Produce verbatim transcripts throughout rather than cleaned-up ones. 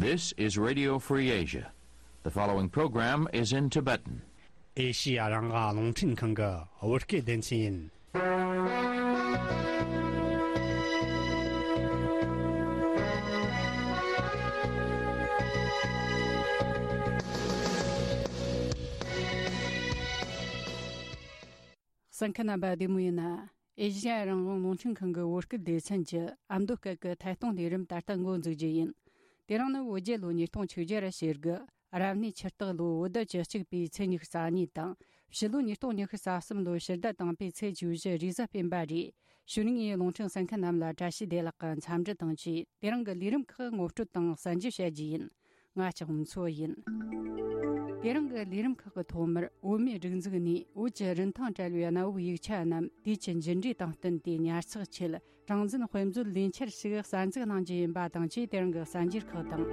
This is Radio Free Asia. The following program is in Tibetan. ཨེ་ཤི་ཡ་རང་དབང་རླུང་འཕྲིན་ཁང་གི་བོད་སྐད་སྡེ་ཚན་ཡིན། གསན་མཁན་རྣམ་པ་བདེ་མོ་ཡིན་ན། ཨེ་ཤི་ཡ་རང་དབང་རླུང་འཕྲིན་ཁང་གི་བོད་སྐད་སྡེ་ཚན་གྱི་ཨ་མདོ་སྐད་ཀྱི་ཐད་གཏོང་ལས་རིམ་ད་ལྟ་འགོ་འཛུགས་རྒྱུ་ཡིན། དེ་རིང་ནི་བོད་རྒྱལ་ལོ་ཉིས་སྟོང་ཆིག་བརྒྱ་ར་ཞེ་དགུ། རབ་གནས་ཆུ་སྟག་ལོ་བོད་ཟླ་བཅུ་གཅིག་པའི་ཚེས་ཉི་ཤུ་རྩ་གཉིས་དང་། ཕྱི་ལོ་ཉིས་སྟོང་ཉི་ཤུ་རྩ་གསུམ་ལོ་ཕྱི་ཟླ་དང་པོའི་ཚེས་བཅུ་བཞི་རེས་གཟའ་སྤེན་པ་རེད། གཞུག་ནས་རླུང་འཕྲིན་གསན་མཁན་རྣམས་ལ་བཀྲ་ཤིས་བདེ་ལེགས་ཀྱི་འཚམས་འདྲི་དང་བཅས། དེ་རིང་གི་ལས་རིམ་ཁག་ངོ་སྤྲོད་དང་གསན་རྒྱུ་བྱ་རྒྱུ་ཡིན། ང་ལྕགས་མཚོ་ཡིན། དེ་རིང་གི་ལས་རིམ་ཁག་གི་ཐོག་མར་བོད་མིའི་སྒྲིག་འཛུགས་ནས་བོད་ཀྱི་རིན་ཐང་བྲལ་བའི་གནའ་བོའི་ཡིག་ཆ་རྣམས་དུས་ཀྱི་འགྱུར་འགྲོས་དང་བསྟུན་ཏེ་ཉར་ཚགས་ཆེད་གྲངས་འཛིན་དཔེ་མཛོད་ལས་འཆར་ཞིག་གསར་འཛུགས་གནང་རྒྱུ་ཡིན་པ་དང་བཅས། དེ་རིང་གི་གསར་འགྱུར་ཁག་དང་།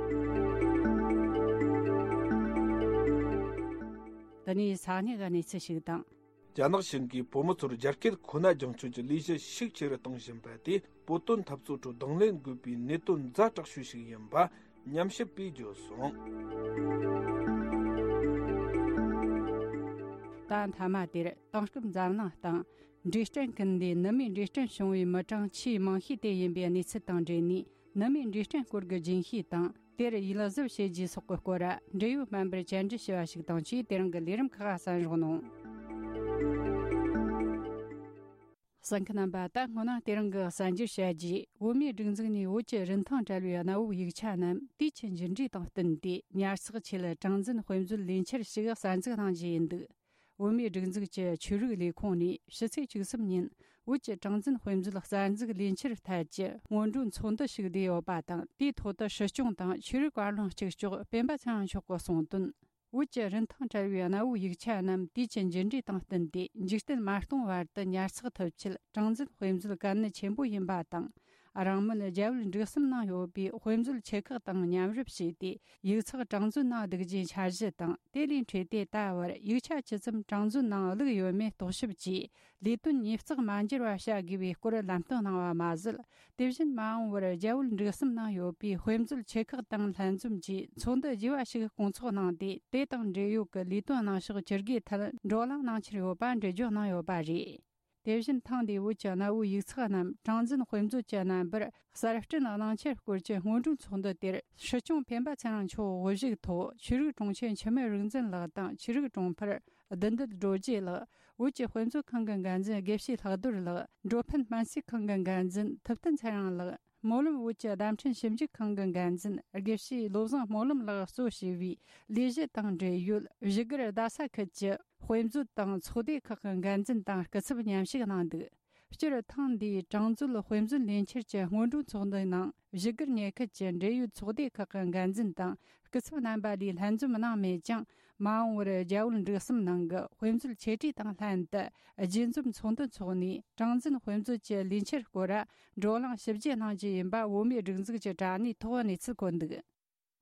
དེ་ནས་ས་གནས་ཀྱི་གནས་ཚུལ་ཞིག་དང་། རྒྱ་ནག་གཞུང་གིས་བོད་མི་ཚོར་རྒྱ་སྐད་ཁོ་ན་སྦྱང་སྤྱོད་ཀྱི་ལས་གཞི་ཤུགས་ཆེ་རུ་གཏོང་བཞིན་པ་དེ་བོད་དོན་འཐབ་རྩོད་ཁྲོད་གདོང་ལེན་དགོས་པའི་གནད་དོན་ཛ་དྲག་ཤོས་ཤིག་ཡིན་པ་ཉམས་ཞིབ་པས་བརྗོད་སོང་། ད་མཐའ་མ་དེར་དེང་སྐབས་འཛམ་གླིང་སྟེང་འབྲས་སྐྲན་ཀུན་ལྡན་ནུ་མའི་འབྲས་སྐྲན་བྱུང་བའི་མི་གྲངས་ཆེས་མང་ཤོས་དེ་ཡིན་པའི་གནས་ཚུལ་དང་འབྲེལ་ནས། ནུ་མའི་འབྲས་སྐྲན་སྐོར་གྱི་རྒྱུན་ཤེས་དང་། དེར་ཡིད་གཟབ་བྱེད་རྒྱུ་སོགས་ཀྱི་སྐོར་འབྲེལ་ཡོད་སྨན་པར་བཅར་འདྲི་ཞུས་པ་ཞིག་དང་བཅས། དེ་རིང་གི་ལས་རིམ་ཁག་གསན་རོགས་གནང་། གསན་མཁན་རྣམ་པ། ད་སྔོན་ན་དེ་རིང་གི་གསར་འགྱུར་བཤད་རྗེས། བོད་མིའི་སྒྲིག་འཛུགས་ནས་བོད་ཀྱི་རིན་ཐང་བྲལ་བའི་གནའ་བོའི་ཡིག་ཆ་རྣམས་དུས་ཀྱི་འགྱུར་འགྲོས་དང་བསྟུན་ཏེ་ཉར་ཚགས་ཆེད་གྲངས་འཛིན་དཔེ་མཛོད་ལས་འཆར་ཞིག་གསར་འཛུགས་གནང་རྒྱུ་ཡིན་འདུག་བོད་མིའི་སྒྲིག་འཛུགས་ཀྱི་ཆོས་རིག་ལས་ཁུངས་ནས་ཕྱི་ཚེས་བཅུ་གསུམ་ཉིན་བོད་ཀྱི་གྲངས་འཛིན་དཔེ་མཛོད་གསར་འཛུགས་ལས་འཆར་ཐད་ཀྱི་སྔོན་འགྲོའི་ཚོགས་འདུ་ཞིག་བསྡུས་ཡོད་པ་དང་། དེའི་ཐོག་ཏུ་སྲིད་སྐྱོང་དང་ཆོས་རིག་བཀའ་བློན་གཅིག་ལྕོགས་སྤེན་པ་ཚེ་རིང་མཆོག་གིས་གསུངས་དོན། བོད་ཀྱི་རིན་ཐང་བྲལ་བའི་གནའ་བོའི་ཡིག་ཆ་རྣམས་དུས་ཀྱི་འགྱུར་འགྲོས་དང་བསྟུན་ཏེ་འཇིག་རྟེན་མ་སྟོངས་བར་དུ་ཉར་ཚགས་ཐུབ་ཆེད་གྲངས་འཛིན་དཔེ་མཛོད་གལ་གནད་ཆེན་པོ་ཡིན་པ་དང་། རིང་མིན་རྒྱ་བོད་འབྲུག་གསུམ་ནང་ཡོད་པའི་དཔེ་མཛོད་ཆེ་ཁག་དང་མཉམ་རུབ་བྱས་ཏེ་ཡིག་ཚགས་གྲངས་འཛིན་གནང་བསྡུ་རྒྱུའི་འཆར་གཞི་དང་། དེ་ལས་འཕྲོས་ཏེ་ད་བར་ཡིག་ཆ་ཇི་ཙམ་གྲངས་འཛིན་ནང་བླུགས་ཡོད་མེད་རྟོག་ཞིབ་ཀྱིས་ལས་དོན་ཉིས་བརྩེགས་མ་འགྱུར་བ་བྱ་དགོས་པའི་སྐོར་ལམ་སྟོན་གནང་བ་མ་ཟད། དེ་བཞིན་མ་འོངས་པར་རྒྱ་བོད་འབྲུག་གསུམ་ནང་ཡོད་པའི་དཔེ་མཛོད་ཆེ་ཁག་དང་ལྷན་འཛོམས་ཀྱིས་ཚོགས་འདུ་རྒྱས་པ་ཞིག་སྐོང་ཚོགས་གནང་སྟེ། དེ་དང་འབྲེལ་ཡོད་ཀྱི་ལས་དོན་གནང་ཕྱོགས་ཇུས་འགོད་ཐད་བགྲོ་གླེང་གནང་འཆར་ཡོད་པ་འགྲེལ་བརྗོད་གནང་ཡོད་པ་རེད། དེ་བཞིན་ཐེངས་འདིའི་བོད་ཀྱི་གནའ་བོའི་ཡིག་ཚགས་རྣམས་གྲངས་འཛིན་དཔེ་མཛོད་ཀྱི་རྣམ་པར་གསར་སྐྲུན་གནང་འཆར་སྐོར་གྱི་སྔོན་འགྲོའི་ཚོགས་འདུ་དེར་སྲིད་སྐྱོང་སྤེན་པ་ཚེ་རིང་མཆོག་དབུ་བཞུགས་ཐོག་ཆོས་རིག་དྲུང་ཆེ་འཆི་མེད་རིག་འཛིན་ལགས་དང་། ཆོས་རིག་དྲུང་འཕར་བདུད་འདུལ་རྡོ་རྗེ་ལགས། བོད་ཀྱི་དཔེ་མཛོད་ཁང་གི་འགན་འཛིན་དགེ་བཤེས་ལྷག་རྡོར་ལགས། འགྲོ་ཕན་སྨན་རྩིས་ཁང་གི་འགན་འཛིན་ཐུབ་བསྟན་ཚེ་རིང་ལགས། སྨོན་ལམ་བོད་ཀྱི་བརྡ་འཕྲིན་ཞིབ་འཇུག་ཁང་གི་འགན་འཛིན་དགེ་བཤེས་བློ་བཟང་སྨོན་ལམ་ལགས་གཙོ་བྱས་པའི་ལས་གཞི་དང་འབྲེལ་ཡོད་བཞུགས་སྒར་རྡ་ས་ཁུལ་གྱི་དཔེ་མཛོད་དང་ཚོགས་སྡེ་ཁག་གི་འགན་འཛིན་དང་སྐུ་ཚབ་མཉམ་ཞུགས་གནང་འདུག་སྤྱིར་ཐེངས་འདིའི་གྲངས་འཛིན་དཔེ་མཛོད་ལས་འཆར་གྱི་སྔོན་འགྲོའི་ཚོགས་འདུའི་ནང་བཞུགས་སྒར་ཉེ་ཁུལ་གྱི་འབྲེལ་ཡོད་ཚོགས་སྡེ་ཁག་གི་འགན་འཛིན་དང་སྐུ་ཚབ་རྣམ་པ་ལས་ལྷན་འཛོམས་གནང་མེད་ཀྱང་། མ་འོངས་པར་རྒྱ་བོད་འབྲུག་གསུམ་ནང་གི་དཔེ་མཛོད་ཆེ་གྲས་དང་ལྷན་དུ་རྒྱས་འཛོམས་ཚོགས་འདུ་འཚོགས་ནས། གྲངས་འཛིན་དཔེ་མཛོད་ཀྱི་ལས་འཆར་སྐོར་བགྲོ་གླེང་ཞིབ་རྒྱས་གནང་རྒྱུ་ཡིན་པ་བོད་མིའི་སྒྲིག་འཛུགས་ཀྱི་དྲ་གནས་ཐོག་གནས་ཚུལ་བཀོད་འདུག་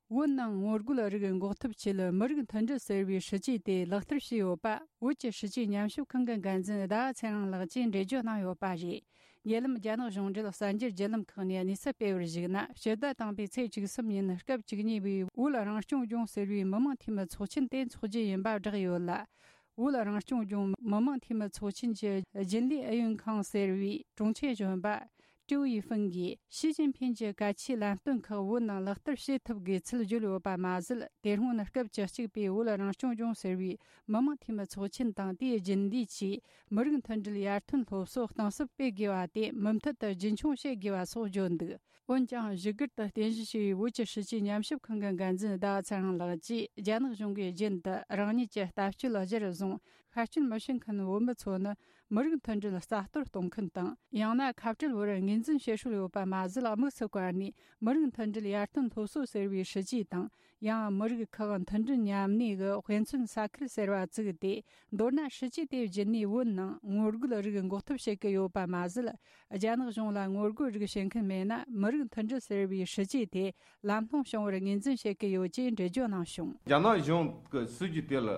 བོད་ནང་ངོ་རྒོལ་རིགས་འགོག་ཐབས་ཆེད་མི་རིགས་མཐུན་སྒྲིལ་ཟེར་བའི་སྲིད་ཇུས་དེ་ལག་བསྟར་བྱས་ཡོད་པ་བོད་ཀྱི་སྲིད་ཇུས་ཉམས་ཞིབ་ཁང་གི་འགན་འཛིན་ཟླ་བ་ཚེ་རིང་ལགས་ཀྱིས་འགྲེལ་བརྗོད་གནང་ཡོད་པ་རེད། ཉེ་ལམ་རྒྱ་ནག་གཞུང་འབྲེལ་གསར་འགྱུར་བརྒྱུད་ལམ་ཁག་ནས་གནས་ཚུལ་སྤེལ་བར་གཞིགས་ན། ཕྱི་ཟླ་དང་པོའི་ཚེས་བཅུ་གསུམ་ཉིན་སྐབས་བཅུ་གཉིས་པའི་བོད་རང་སྐྱོང་ལྗོངས་ཟེར་བའི་མི་དམངས་འཐུས་མི་ཚོགས་ཆེན་དེ་འཚོགས་རྒྱུ་ཡིན་པ་བསྒྲགས་ཡོད་ལ། བོད་རང་སྐྱོང་ལྗོངས་མི་དམངས་འཐུས་མི་ཚོགས་ཆེན་གྱི་རྒྱུན་ལས་ཨུ་ཡོན་ཁང་ཟེར་བའི་དྲུང་ཆེ་གཞོན་པ་ཀྲུའུ་ཡི་ཧྥུན་གྱིས་ཞི་ཅིན་ཕིན་གྱི་གལ་ཆེའི་ལམ་སྟོན་ཁག་བོད་ནང་ལག་བསྟར་བྱེད་ཐུབ་དགོས་ཚུལ་བརྗོད་ཡོད་པ་མ་ཟད། དེ་སྔོན་སྐབས་བཅུ་གཅིག་པའི་བོད་རང་སྐྱོང་ལྗོངས་ཟེར་བའི་མི་དམངས་འཐུས་མི་ཚོགས་ཆེན་དང་། དེའི་རྒྱུན་ལས་ཀྱིས་མི་རིགས་མཐུན་སྒྲིལ་ཡར་ཐོན་སློབ་གསོ་གཏིང་ཟབ་སྤེལ་དགོས་པ་དེ་མུ་མཐུད་དུ་རྒྱུན་འཁྱོངས་བྱེད་དགོས་པ་སོགས་བརྗོད་འདུག་འོན་ཀྱང་། བཞུགས་སྒར་དུ་རྟེན་གཞི་བྱས་པའི་བོད་ཀྱི་སྲིད་བྱུས་ཉམས་ཞིབ་ཁང་གི་འགན་འཛིན་ཟླ་བ་ཚེ་རིང་ལགས་ཀྱིས། རྒྱ་ནག་གཞུང་གིས་རྒྱུན་དུ་རང་ཉིད་ཀྱི་ལྟ་སྤྱོད་གཞིར་བཟུང་ཤར་སྐྱོད་མི་བྱེད་མཁན་བོད་མི་ཚོ་ནི་མི་རིགས་མཐུན་སྒྲིལ་རྩ་གཏོར་གཏོང་མཁན་དང་། ཡང་ན་ཁ་བྲལ་བར་ངོས་འཛིན་བྱེད་སྲོལ་ཡོད་པ་མ་ཟད། དམིགས་སུ་བཀར་ནས་མི་རིགས་མཐུན་སྒྲིལ་ཡར་ཐོན་སློབ་གསོ་ཟེར་བའི་སྲིད་བྱུས་དང་། ཡང་མི་རིགས་ཁག་མཐུན་སྒྲིལ་མཉམ་གནས་ཀྱི་དཔེ་མཚོན་ས་ཁུལ་ཟེར་བ་བཙུགས་ཏེ། མདོར་ན། སྲིད་བྱུས་དེ་བརྒྱུད་ནས་བོད་ནང་ངོ་རྒོལ་རིགས་འགོག་ཐབས་བྱེད་ཀྱི་ཡོད་པ་མ་ཟད། རྒྱ་ནག་གཞུང་ལ་ངོ་རྒོལ་རིགས་བྱེད་མཁན་མེད་ན། མི་རིགས་མཐུན་སྒྲིལ་ཟེར་བའི་སྲིད་བྱུས་དེ་ལམ་ལྷོང་བྱུང་བར་ངོས་འཛིན་བྱེད་ཀྱི་ཡོད་ཅེས་འགྲེལ་བརྗོད་གནང་བྱུང་། རྒྱ་ནག་གཞུང་གི་སྲིད་བྱུས་དེ་ལ་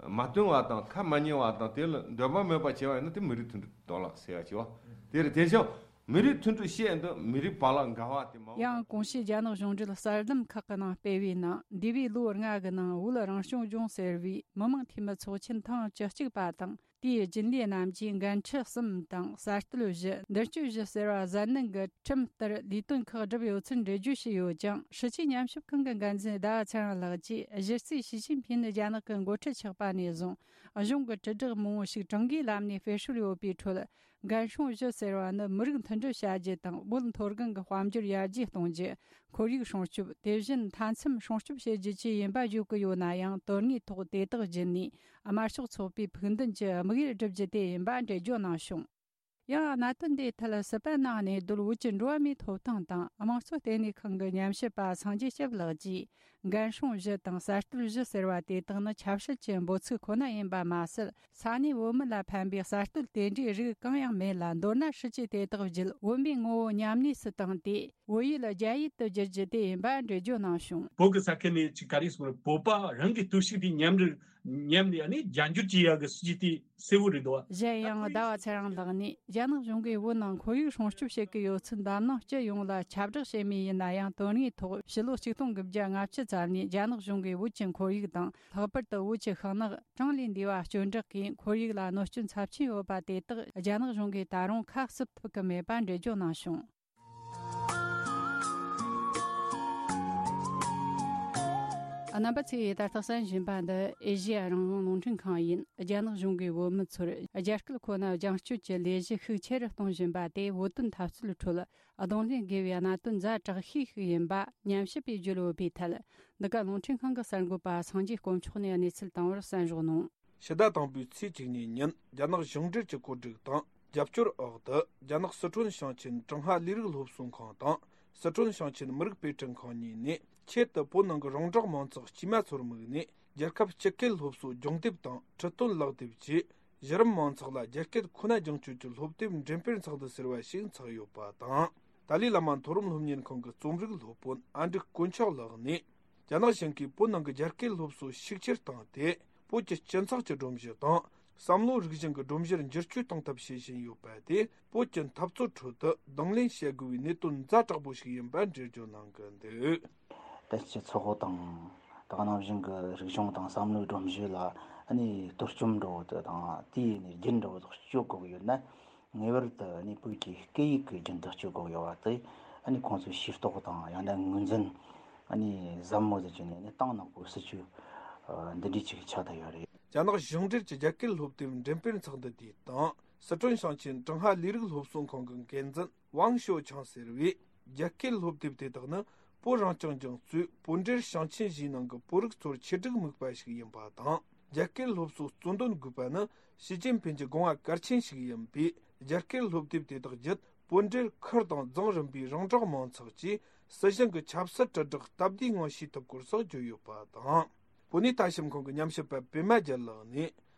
མ་བསྟུན་པ་དང་། ཁ་མ་ཉན་པ་དང་། དེ་ལ་འདོད་པ་མེད་པ་བྱས་པ་ཡིན་ན། དེ་མི་རིགས་མཐུན་སྒྲིལ་གཏོང་ལག་ཟེར་ཡ་བྱས་པ་དེ་རེད། དེ་བཞིན། མི་རིགས་མཐུན་སྒྲིལ་བཤད་འདི་མི་རིགས་བར་ལ་འགལ་བ་དེ་མ་ཡང་གོང་ཞུས་རྒྱ་ནག་གཞུང་འབྲེལ་གསར་ལམ་ཁག་གི་ནང་སྤེལ་བའི་ནང་འདས་པའི་ལོ་ལྔ་གི་ནང་བོད་རང་སྐྱོང་ལྗོངས་ཟེར་བའི་མི་དམངས་འཐུས་མི་ཚོགས་ཆེན་ཐེངས་བཅུ་གཅིག་པ་དང་། དེའི་རྒྱུན་ལས་རྣམས་ཀྱིས་འགན་འཁྲི་གསུམ་དང་གསར་གཏོད་བཞི། མདུན་སྐྱོད་བཞི་ཟེར་བ་གཟབ་ནན་གྱི་ཁྲིམས་ལྟར་ལས་དོན་ཁག་བསྒྲུབས་ཡོད་ཚུལ་འགྲེལ་བརྗོད་བྱས་ཡོད་ཀྱང་། སྲིད་བྱུས་ཉམས་ཞིབ་ཁང་གི་འགན་འཛིན་ཟླ་བ་ཚེ་རིང་ལགས་ཀྱིས། གཞི་རྩའི་ཞི་ཅིན་ཕིན་ནི་རྒྱ་ནག་གི་འགོ་ཁྲིད་ཆགས་པ་ནས་བཟུང་གཞུང་གི་དྲིལ་བསྒྲགས་མང་བོ་ཞིག་གྲངས་ཀའི་ལམ་ནས་སྤེལ་སྲོལ་ཡོད་པའི་ཁྲོད། འགན་སྲུང་བཞི་ཟེར་བ་ནི་མི་རིགས་མཐུན་སྒྲིལ་བྱ་རྒྱུ་དང་། བོད་མཐོ་སྒང་གི་དཔལ་འབྱོར་ཡར་རྒྱས་གཏོང་རྒྱུ། ཁོར་ཡུག་སྲུང་སྐྱོབ། དེ་བཞིན་མཐའ་མཚམས་སྲུང་སྐྱོབ་བྱེད་རྒྱུ་བཅས་ཡིན་པ་བརྗོད་ཀྱི་ཡོད་ན་ཡང་། དོན་དངོས་ཐོག་དེ་དག་བརྒྱུད་ནས་དམར་ཤོག་ཚོགས་པའི་ཕུགས་འདུན་གྱི་དམིགས་ཡུལ་བསྒྲུབ་རྒྱུ་དེ་ཡིན་པ་འགྲེལ་བརྗོད་གནང་བྱུང་། ཡང་གནད་དོན་དེའི་ཐད་སི་པན་ནང་གནས་སྡོད་བོད་ཀྱི་འགྲོ་བ་མིའི་ཐོབ་ཐང་དང་དམངས་གཙོ་ལྟེ་གནས་ཁང་གི་ཉམས་ཞིབ་པ་སངས་རྒྱས་སྐྱབས་ལགས་ཀྱིས། འགན་སྲུང་བཞི་དང་གསར་གཏོད་བཞི་ཟེར་བ་དེ་དག་ནི་ཆབ་སྲིད་ཀྱི་འབོད་ཚིག་ཁོ་ན་ཡིན་པ་མ་ཟད། ས་གནས་བོད་མི་ལ་ཕན་པའི་གསར་གཏོད་དེ་འདྲའི་རིགས་གང་ཡང་མེད་ལ། མདོར་ན་སྲིད་བྱུས་དེ་དག་བརྒྱུད་བོད་མིའི་ངོ་བོ་ཉམས་དམས་སུ་བཏང་སྟེ། བོད་ཡིག་ལ་རྒྱ་ཡིག་ཏུ་བསྒྱུར་རྒྱུ་དེ་ཡིན་པ་འགྲེལ་བརྗོད་གནང་བྱུང་། བོད་ཀྱི་ས་ཁུལ་ནས་ཅིག་ག་རེ་ཟེར་བོད་པ་རང་གི་སྟོབས་ཤུགས་དེ་ཉམས་རེ་ཉམས་ནས་ཨ་ནི་རྒྱ་འགྱུར་གྱི་ཡག་གི་སྲིད་བྱུས་དེ་གསལ་བོ་རེད་འདུག་བ། གཞན་ཡང་ཟླ་བ་ཚེ་རིང་ལགས་ནས། རྒྱ་ནག་གཞུང་གིས་བོད་ནང་ཁོར་ཡུག་སྲུང་སྐྱོབ་བྱེད་ཀྱི་ཡོད་ཚུལ་འཛམ་གླིང་སྤྱི་ཡོངས་ལ་ཁྱབ་བསྒྲགས་བྱེད་མུས་ཡིན་ན་ཡང་། དོན་དངོས་ཐོག་ཕྱི་ལོ་ཆིག་སྟོང་དགུ་བརྒྱ་ལྔ་བཅུ་ཙམ་ནས་རྒྱ་ནག་གཞུང་གིས་བོད་ཀྱི་ཁོར་ཡུག་དང་། ལྷག་པར་དུ་བོད་ཀྱི་ཤིང་ནགས་གྲངས་ལས་འདས་པ་གཅོད་འབྲེག་གིས་ཁོར་ཡུག་ལ་གནོད་སྐྱོན་ཚབས་ཆེན་ཡོད་པ་དེ་དག་རྒྱ་ནག་གཞུང་གིས་ད་རུང་ཁ་བསུབ་ཐུབ་ཀྱི་མེད་པ་འགྲེལ་བརྗོད་གནང་བྱུང་། རྣམ་པ་ཚོས་ད་ལྟ་གསན་བཞིན་པ་འདི་ཨེ་ཤེ་ཡ་རང་དབང་རླུང་འཕྲིན་ཁང་ཡིན། རྒྱ་ནག་གཞུང་གིས་བོད་མི་ཚོར་རྒྱ་སྐད་ཁོ་ན་རྒྱང་སྐྱོད་ཀྱི་ལས་གཞི་ཤུགས་ཆེ་རུ་གཏོང་བཞིན་པ་དེ། བོད་དོན་འཐབ་རྩོད་ཁྲོད་གདོང་ལེན་དགོས་པའི་གནད་དོན་ཛ་དྲག་ཤོས་ཤིག་ཡིན་པ་ཉམས་ཞིབ་པས་བརྗོད་ཡོད་པའི་ཐད། འདི་ག་རླུང་འཕྲིན་ཁང་གི་གསར་འགོད་པ་སངས་རྒྱས་དཀོན་མཆོག་ནས་གནས་ཚུལ་བཏང་བར་གསན་རོགས་གནང་། ཕྱི་ཟླ་དང་པོའི་ཚེས་བཅུ་གཉིས་ཉིན་རྒྱ་ནག་གཞུང་འབྲེལ་གྱི་བཀོད་སྒྲིག་དང་རྒྱབ་སྐྱོར་འོག་ཏུ། རྒྱ་ནག་སི་ཁྲོན་ཞིང་ཆེན་ཀྲུང་ཧྭ་ལས་རིགས་སློབ་གསོ་ཁང་དང་། སི་ཁྲོན་ཞིང་ཆེན་མི་རིགས་དཔེ་སྐྲུན་ཁང་གཉིས་ནས། ཆེད་དུ་བོད་ནང་གི་རོང་འབྲོག་མང་ཚོགས་དཀྱུས་མ་ཚོར་དམིགས་ནས། རྒྱལ་ཁབ་སྤྱི་སྐད་སློབ་གསོ་སྦྱོང་དེབ་དང་ཁྲིད་སྟོན་ཀློག་དེབ་བཅས། གཞི་རིམ་མང་ཚོགས་ལ་རྒྱ་སྐད་ཁོ་ན་སྦྱོང་སྤྱོད་ཀྱི་སློབ་དེབ་འགྲེམས་སྤེལ་ཚོགས་འདུ་ཟེར་བ་ཞིག་འཚོགས་ཡོད་པ་དང་། ཏཱ་ལའི་བླ་མ་མཐོ་རིམ་སློབ་གཉེར་ཁང་གི་རྩོམ་རིག་སློབ་དཔོན་ཨ་འབྲུག་དཀོན་མཆོག་ལགས་ནས། རྒྱ་ནག་གཞུང་གིས་བོད་ནང་གི་རྒྱ་སྐད་སློབ་གསོ་ཤུགས་ཆེར་བཏང་སྟེ། བོད་ཀྱི་སྤྱི་ཚོགས་ཀྱི་སྒྲོམ་གཞི་དང་། བསམ་བློ་རིག་གཞུང་གི་སྒྲོམ་གཞིར་འགྱུར་བཅོས་གཏོང་ཐབས་བྱེད་བཞིན་ཡོད་པ་དེ། བོད་ཀྱི་འཐབ་རྩོད་ཁྲོད་དུ་གདོང་ལེན་བྱེད་དགོས་པའི་གནད་དོན་ཛ་དྲག་པོ་ཞིག་ཡིན་པ་འགྲེལ་བརྗོད་གནང་གི་འདུག། ད་སྤྱི་ཚོགས་དང་། ད་ག་ནང་བཞིན་གྱི་རིག་གཞུང་དང་བསམ་བློའི་སྒྲོམ་གཞི་ལ་ཨ་ནི་གཏོར་བཅོམ་འདྲ་བོ་དེ་དང་། དེའི་ནས་རྒྱུན་འདྲ་བོ་དག་གཅོད་དགོས་ཀྱི་ཡོད་ན། ངེས་པར་དུ་ཨ་ནི་བོད་ཀྱི་སྐད་ཡིག་གི་རྒྱུན་དུ་སྐྱོད་དགོས་ཡོད་པ་དེ། ཨ་ནི་ཁོང་ཚོས་ཤེས་རྟོགས་དང་། ཡང་ན་ངོས་འཛིན་ཨ་ནི་ཟབ་མོ་ཟིག་བྱས་ནས། ཨ་ནི་ཏང་ནག་པོའི་སྲིད་བྱུས་འདི་འདྲའི་ཅིག་ཆགས་བསྡད་ཡོད་རེད། རྒྱ་ནག་གཞུང་འབྲེལ་གྱི་རྒྱ་སྐད་སློབ་དེབ་འགྲེམས་སྤེལ་ཚོགས་འདུ་དེ་དང་། སི་ཁྲོན་ཞིང་ཆེན་ཀྲུང་ཧྭ་ལས་རིགས་སློབ་གསོ་ཁང་གི་འགན་འཛིན་ཝང་ཞོ་ཆང་ཟེར་བས། རྒྱ་སྐད་སློབ་དེབ་དེ་དག་ནི་བོད་རང་སྐྱོང་ལྗོངས་གཙོས་བོད་འབྲེལ་ཞིང་ཆེན་བཞིའི་ནང་གི་བོད་རིགས་ཚོར་ཆེད་སྒྲིག་དམིགས་པ་ཞིག་ཡིན་པ་དང་། རྒྱ་སྐད་སློབ་གསོ་གཙོ་འདོན་དགོས་པ་ནི་ཞི་ཅིན་ཕིན་གྱི་དགོངས་པ་གལ་ཆེན་ཞིག་ཡིན་པས། རྒྱ་སྐད་སློབ་དེབ་དེ་དག་བརྒྱུད་བོད་འབྲེལ་ཁུལ་དང་རྫོང་རིམ་པའི་རོང་འབྲོག་མང་ཚོགས་ཀྱིས་སྲིད་གཞུང་གི་ཆབ་སྲིད་དྲིལ་བསྒྲགས་སྟབས་བདེའི་ངང་ཤེས་ཐུབ་སྐོར་སོགས་བརྗོད་ཡོད་པ་དང་། བོད་གནས་ལྟ་ཞིབ་ཁང་གི་ཉམས་ཞིབ་པ་པད་མ་རྒྱལ་ལགས་ནས།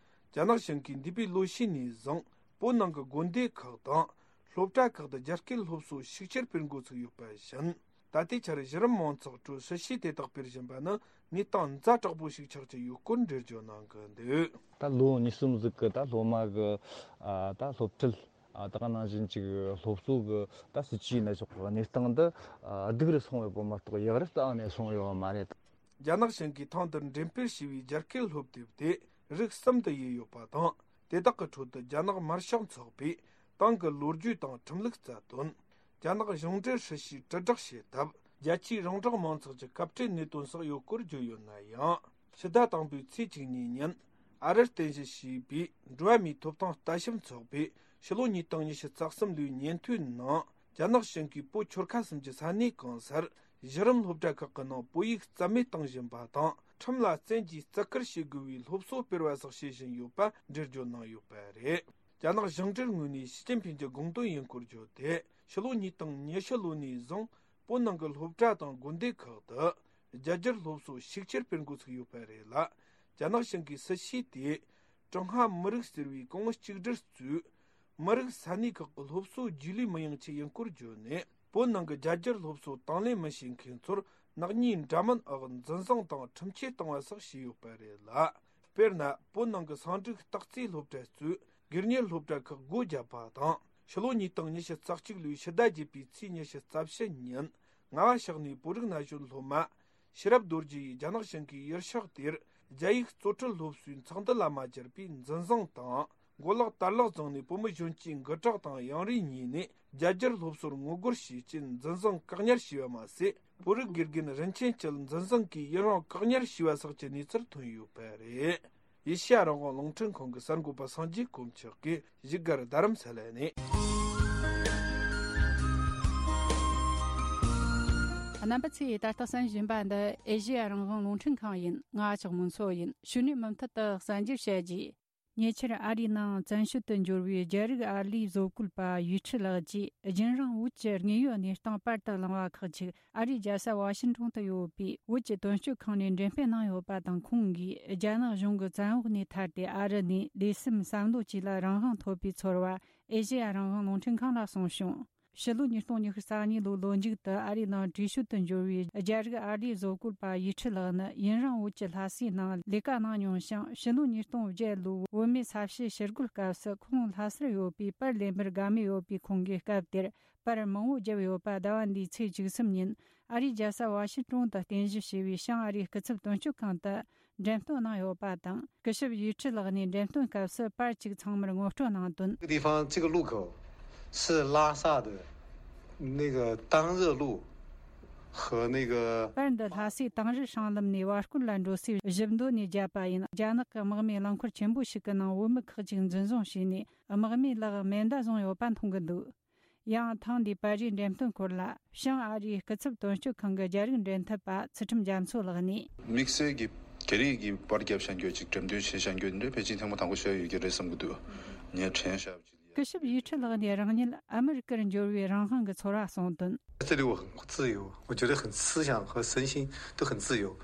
རྒྱ་ནག་གཞུང་གིས་འདས་པའི་ལོ་ཤས་ནས་བཟུང་བོད་ནང་གི་དགོན་སྡེ་ཁག་དང་སློབ་གྲྭ་ཁག་ཏུ་རྒྱ་སྐད་སློབ་གསོ་ཤུགས་ཆེར་སྤེལ་འགོ་ཚུགས་ཡོད་པ་བཞིན། ད་ལྟའི་ཆར་གཞི་རིམ་མང་ཚོགས་ཁྲོད་སྲིད་བྱུས་དེ་དག་སྤེལ་བཞིན་པ་ནི་གནས་སྟངས་ཛ་དྲག་པོ་ཞིག་ཆགས་ཀྱི་ཡོད་སྐོར་འགྲེལ་བརྗོད་གནང་གི་འདུག། ད་ལོ་གཉིས་གསུམ་ཟིག་གི་ད་སློབ་མ་གི་ཨ་ད་སློབ་ཁྲིད། ཨ་ད་ག་ནང་བཞིན་ཅིག་སློབ་གསོ་གི་ད་སྲིད་བྱུས་ཡིན་ན་ཆོག་གི། གནས་སྟངས་འདི་ཨ་སྡུག་རུ་སོང་བའི་སྐོར་མ་གཏོགས་ཡག་རུ་རྩ་བ་ནས་སོང་ཡོད་མ་རེད། རྒྱ་ནག་གཞུང་གིས་ཐེངས་འདིར་འགྲེམས་སྤེལ་བྱས་པའི་རྒྱ་སྐད་སློབ་དེབ་དེ་རིགས་གསུམ་དུ་དབྱེ་ཡོད་པ་དང་། དེ་དག་གི་ཁྲོད་དུ་རྒྱ་ནག་དམར་ཤོག་ཚོགས་པའི་ཏང་གི་ལོ་རྒྱུས་དང་ཁྲིམས་ལུགས་རྩ་དོན། རྒྱ་ནག་གཞུང་འབྲེལ་སྲིད་བྱུས་དྲིལ་བསྒྲགས་བྱེད་ཐབས། རྒྱ་ཆེའི་རོང་འབྲོག་མང་ཚོགས་ཀྱི་སྐབས་འཕྲལ་གནད་དོན་སོགས་ཡོད་སྐོར་བརྗོད་ཡོད་ན་ཡང་། ཕྱི་ཟླ་དང་པོའི་ཚེས་བཅུ་གཉིས་ཉིན་ཨ་རིར་རྟེན་གཞི་བྱས་པའི་འགྲོ་བ་མིའི་ཐོབ་ཐང་ལྟ་ཞིབ་ཚོགས་པས་ཕྱི་ལོ་ཉིས་སྟོང་ཉི་ཤུ་རྩ་གསུམ་ལོའི་ཉིན་ཐོའི་ནང་། རྒྱ་ནག་གཞུང་གིས་བོད་ཆོལ་ཁ་གསུམ་གྱི་ས་གནས་གང་སར་གཞི་རིམ་སློབ་གྲྭ་ཁག་གི་ནང་བོད་ཡིག་རྩ་མེད་གཏོང་བཞིན་པ་དང་། ཁྲིམས་ལ་བཙན་གྱིས་བརྩི་བཀུར་བྱེད་དགོས་པའི་སློབ་གསོ་སྤེལ་བ་སོགས་བྱེད་བཞིན་ཡོད་པ་འགྲེལ་བརྗོད་གནང་ཡོད་པ་རེད། རྒྱ་ནག་གཞུང་འབྲེལ་ངོས་ནས་ཞི་ཅིན་ཕིན་གྱི་དགོངས་དོན་ཡིན་སྐོར་བརྗོད་དེ། ཕྱི་ལོ་ཉིས་སྟོང་ཉི་ཤུ་ལོ་ནས་བཟུང་བོད་ནང་གི་སློབ་གྲྭ་དང་དགོན་སྡེ་ཁག་ཏུ་རྒྱ་སྒྱུར་སློབ་གསོ་ཤུགས་ཆེར་སྤེལ་འགོ་ཚུགས་ཡོད་པ་རེད་ལ། རྒྱ་ནག་གཞུང་གིས་སྲིད་བྱུས་དེས་ཀྲུང་ཧྭ་མི་རིགས་ཟེར་བའི་ཀོང་བུ་གཅིག་སྒྲིལ་གཙོས་མི་རིགས་ས་གནས་ཁག་གི་སློབ་གསོ་རྒྱུས་ལོན་མི་ཡོང་ཆེད་ཡིན་སྐོར་བརྗོད་ནས། བོད་ནང་གི་རྒྱ་སྒྱུར་སློབ་གསོ་དང་ལེན་མི་བྱེད་མཁན་ཚོར་ནག་ཉེས་འདྲ་མིན་འོག་འཛིན་བཟུང་དང་ཁྲིམས་ཆད་གཏོང་བ་སོགས་བྱས་ཡོད་པ་རེད་ལ། དཔེར་ན། བོད་ནང་གི་སང་འགྲིག་སྟག་རྩེའི་སློབ་གྲྭ་གཙོས་སྒེར་གཉེར་སློབ་གྲྭ་ཁག་སྒོ་བརྒྱབ་པ་དང་ ཕྱི་ལོ་ཉིས་སྟོང་ཉི་ཤུ་རྩ་གཅིག་ལོའི་ཕྱི་ཟླ་བརྒྱད་པའི་ཚེས་ཉི་ཤུ་རྩ་བཞི་ཉིན་རྔ་བ་ཕྱོགས་ནས་བོད་རིགས་ན་གཞོན་སློབ་མ་ཤེས་རབ་རྡོ་རྗེ་ཡིས་རྒྱ་ནག་ཞིང་གའི་ཡུལ་ཤག་དེར་རྒྱ་ཡིག་གཙོ་ཁྲིད་སློབ་གསོའི་ཚོགས་འདུ་ལ་མ་བཅར་བའི་འཛིན་བཟུང་དང་། མགོ་ལག་དར་ལག་བརྫངས་ནས་བུ་མོ་གཞོན་སྐྱེས་འགུལ་སྐྲག་དང་གཡུང་རུས་གཉིས་ནས་རྒྱ་སྒྱུར་སློབ་གསོར་ངོ་རྒོལ་བྱས་རྐྱེན་འཛིན་བཟུང་བཀག་ཉར་བྱས་པ་མ་ཟད། བོད་རིགས་དགེ་རྒན་རིན་ཆེན་སྐྱིད་འཛིན་བཟུང་གིས་ཡུན་རིང་བཀག་ཉར་བྱས་པ་སོགས་ཀྱི་གནས་ཚུལ་ཐོན་ཡོད་པ་རེད། ཨེ་ཤེ་ཡ་རང་དབང་རླུང་འཕྲིན་ཁང་གི་གསར་འགོད་པ་སངས་རྒྱས་དཀོན་མཆོག་གིས་བཞུགས་སྒར་རྡ་རམ་ས་ལ་ནས། རྣམ་པ་ཚོས་ད་ལྟ་གསན་བཞིན་པ་འདི་ཨེ་ཤེ་ཡ་རང་དབང་རླུང་འཕྲིན་ཁང་ཡིན། ང་ལྕགས་མོ་མཚོ་ཡིན། ཕྱི་ནས་མུ་མཐུད་དུ་གསན་རྒྱུར་བྱ་རྒྱུ། ཉེ་ཆར་ཨ་རིའི་ནང་བཙན་བྱོལ་དུ་འབྱོར་བའི་རྒྱ་རིགས་ཨར་ལས་བཟོ་བཀོད་པ་ཡུས་ཁྲི་ལགས་ཀྱིས་རྒྱུན་རིང་བོད་ཀྱི་དངོས་ཡོད་གནས་སྟངས་པར་དུ་བླངས་པ་ཁག་ཅིག་ཨ་རིའི་རྒྱལ་ས་ཝ་ཤིང་ཏོན་དུ་ཡོད་པའི་བོད་ཀྱི་དོན་གཅོད་ཁང་ནས་འགྲེམས་སྤེལ་གནང་ཡོད་པ་དང་། ཁོང་གིས་རྒྱ་ནག་གཞུང་གི་བཙན་འོག་ནས་ཐར་ཏེ་ཨ་རི་ནས་ལས་སེམས་བསམ་བློ་བཅས་ལ་རང་དབང་ཐོབ་པའི་ཚོར་བ་ཨེ་ཤེ་ཡ་རང་དབང་རླུང་འཕྲིན་ཁང་ལ་གསུངས་བྱུང་། ཕྱི་ལོ་ཉིས་སྟོང་ཉི་ཤུ་རྩ་གཉིས་ལོའི་ལོ་མཇུག་ཏུ་ཨ་རིའི་ནང་བྲོས་བྱོལ་དུ་འབྱོར་བའི་རྒྱ་རིགས་ཨར་ལས་བཟོ་བཀོད་པ་ཡུས་ཁྲི་ལགས་ནི་ཡུན་རིང་བོད་ཀྱི་ལྷ་སའི་ནང་ལས་ཀ་གནང་མྱོང་ཞིང་། ཕྱི་ལོ་ཉིས་སྟོང་བརྒྱད་ལོའི་བོད་མིའི་ས་བྱི་ཞི་རྒོལ་སྐབས་སུ་ཁོང་ལྷ་སར་ཡོད་པའི་པར་ལེན་པར་དགའ་མོས་ཡོད་པའི་ཁོང་གིས་སྐབས་དེར་པར་མང་བོ་བརྒྱབ་ཡོད་པ། ཟླ་བ་འདིའི་ཚེས་བཅུ་གསུམ་ཉིན་ཨ་རིའི་རྒྱལ་ས་ཝ་ཤིང་ཏོན་དུ་རྟེན་གཞི་བྱས་པའི་བྱང་ཨ་རིའི་སྐུ་ཚབ་དོན་གཅོད་ཁང་དུ་འགྲེམས་སྟོན་གནང་ཡོད་པ་དང་། སྐུ་ཞབས་ཡུས་ཁྲི་ལགས་ནས་འགྲེམས་སྟོན་སྐབས་སུ་པར་གཅིག་ཚང་མར་ངོ་སྤྲོད་གནང་དོན། 这个地方，这个路口是拉萨的那个当热路和那个 པར་འདི་ལྷ་སའི་དེང་རབས་སྲང་ལམ་ནས་བར་སྐོར་ལ་འགྲོ་སའི་བཞི་མདོ་ནས་བརྒྱབ་པ་ཡིན། རྒྱ་ནག་གི་དམག་མིས་རླངས་འཁོར་ཆེན་པོ་ཞིག་གི་ནང་བོད་མི་ཁག་ཅིག་འཛིན་བཟུང་བྱས་ནས། དམག་མིས་ལག་མེ་མདའ་བཟུང་ཡོད་པ་མཐོང་གི་འདུག་ཡང་ཐེངས་འདིའི་པར་རིས་འགྲེམས་སྟོན་སྐོར་ལ་བྱང་ཨ་རིའི་སྐུ་ཚབ་དོན་གཅོད་ཁང་གི་རྒྱ་རིགས་འབྲེལ་མཐུད་པ་ཚུལ་ཁྲིམས་རྒྱ་མཚོ་ལགས་ནས། དམིགས་བསལ་གྱི་རྒྱ་རིགས་ཀྱི་པར་རྒྱབ་བཞག་རྒྱུ་ཅིག་འགྲེམས་སྟོན་བྱས་བཞག་རྒྱུ་འདི་ཕལ་ཆེར་ཐེངས་མ་དང་པོ་ཞིག་ཡོད་ཀྱི་རེད་བསམ་གྱི་འདུག་ངས་དྲན་བཞག་པ་ཅིག་སྐུ་ཞབས་ཡུས་ཁྲི་ལགས་ནས་རང་ཉིད་ཨ་མི་རི་ཀར་འབྱོར་བའི་རང་དབང་གི་ཚོར་བ་གསུངས་དོན། 这里我很自由，我觉得很思想和身心都很自由。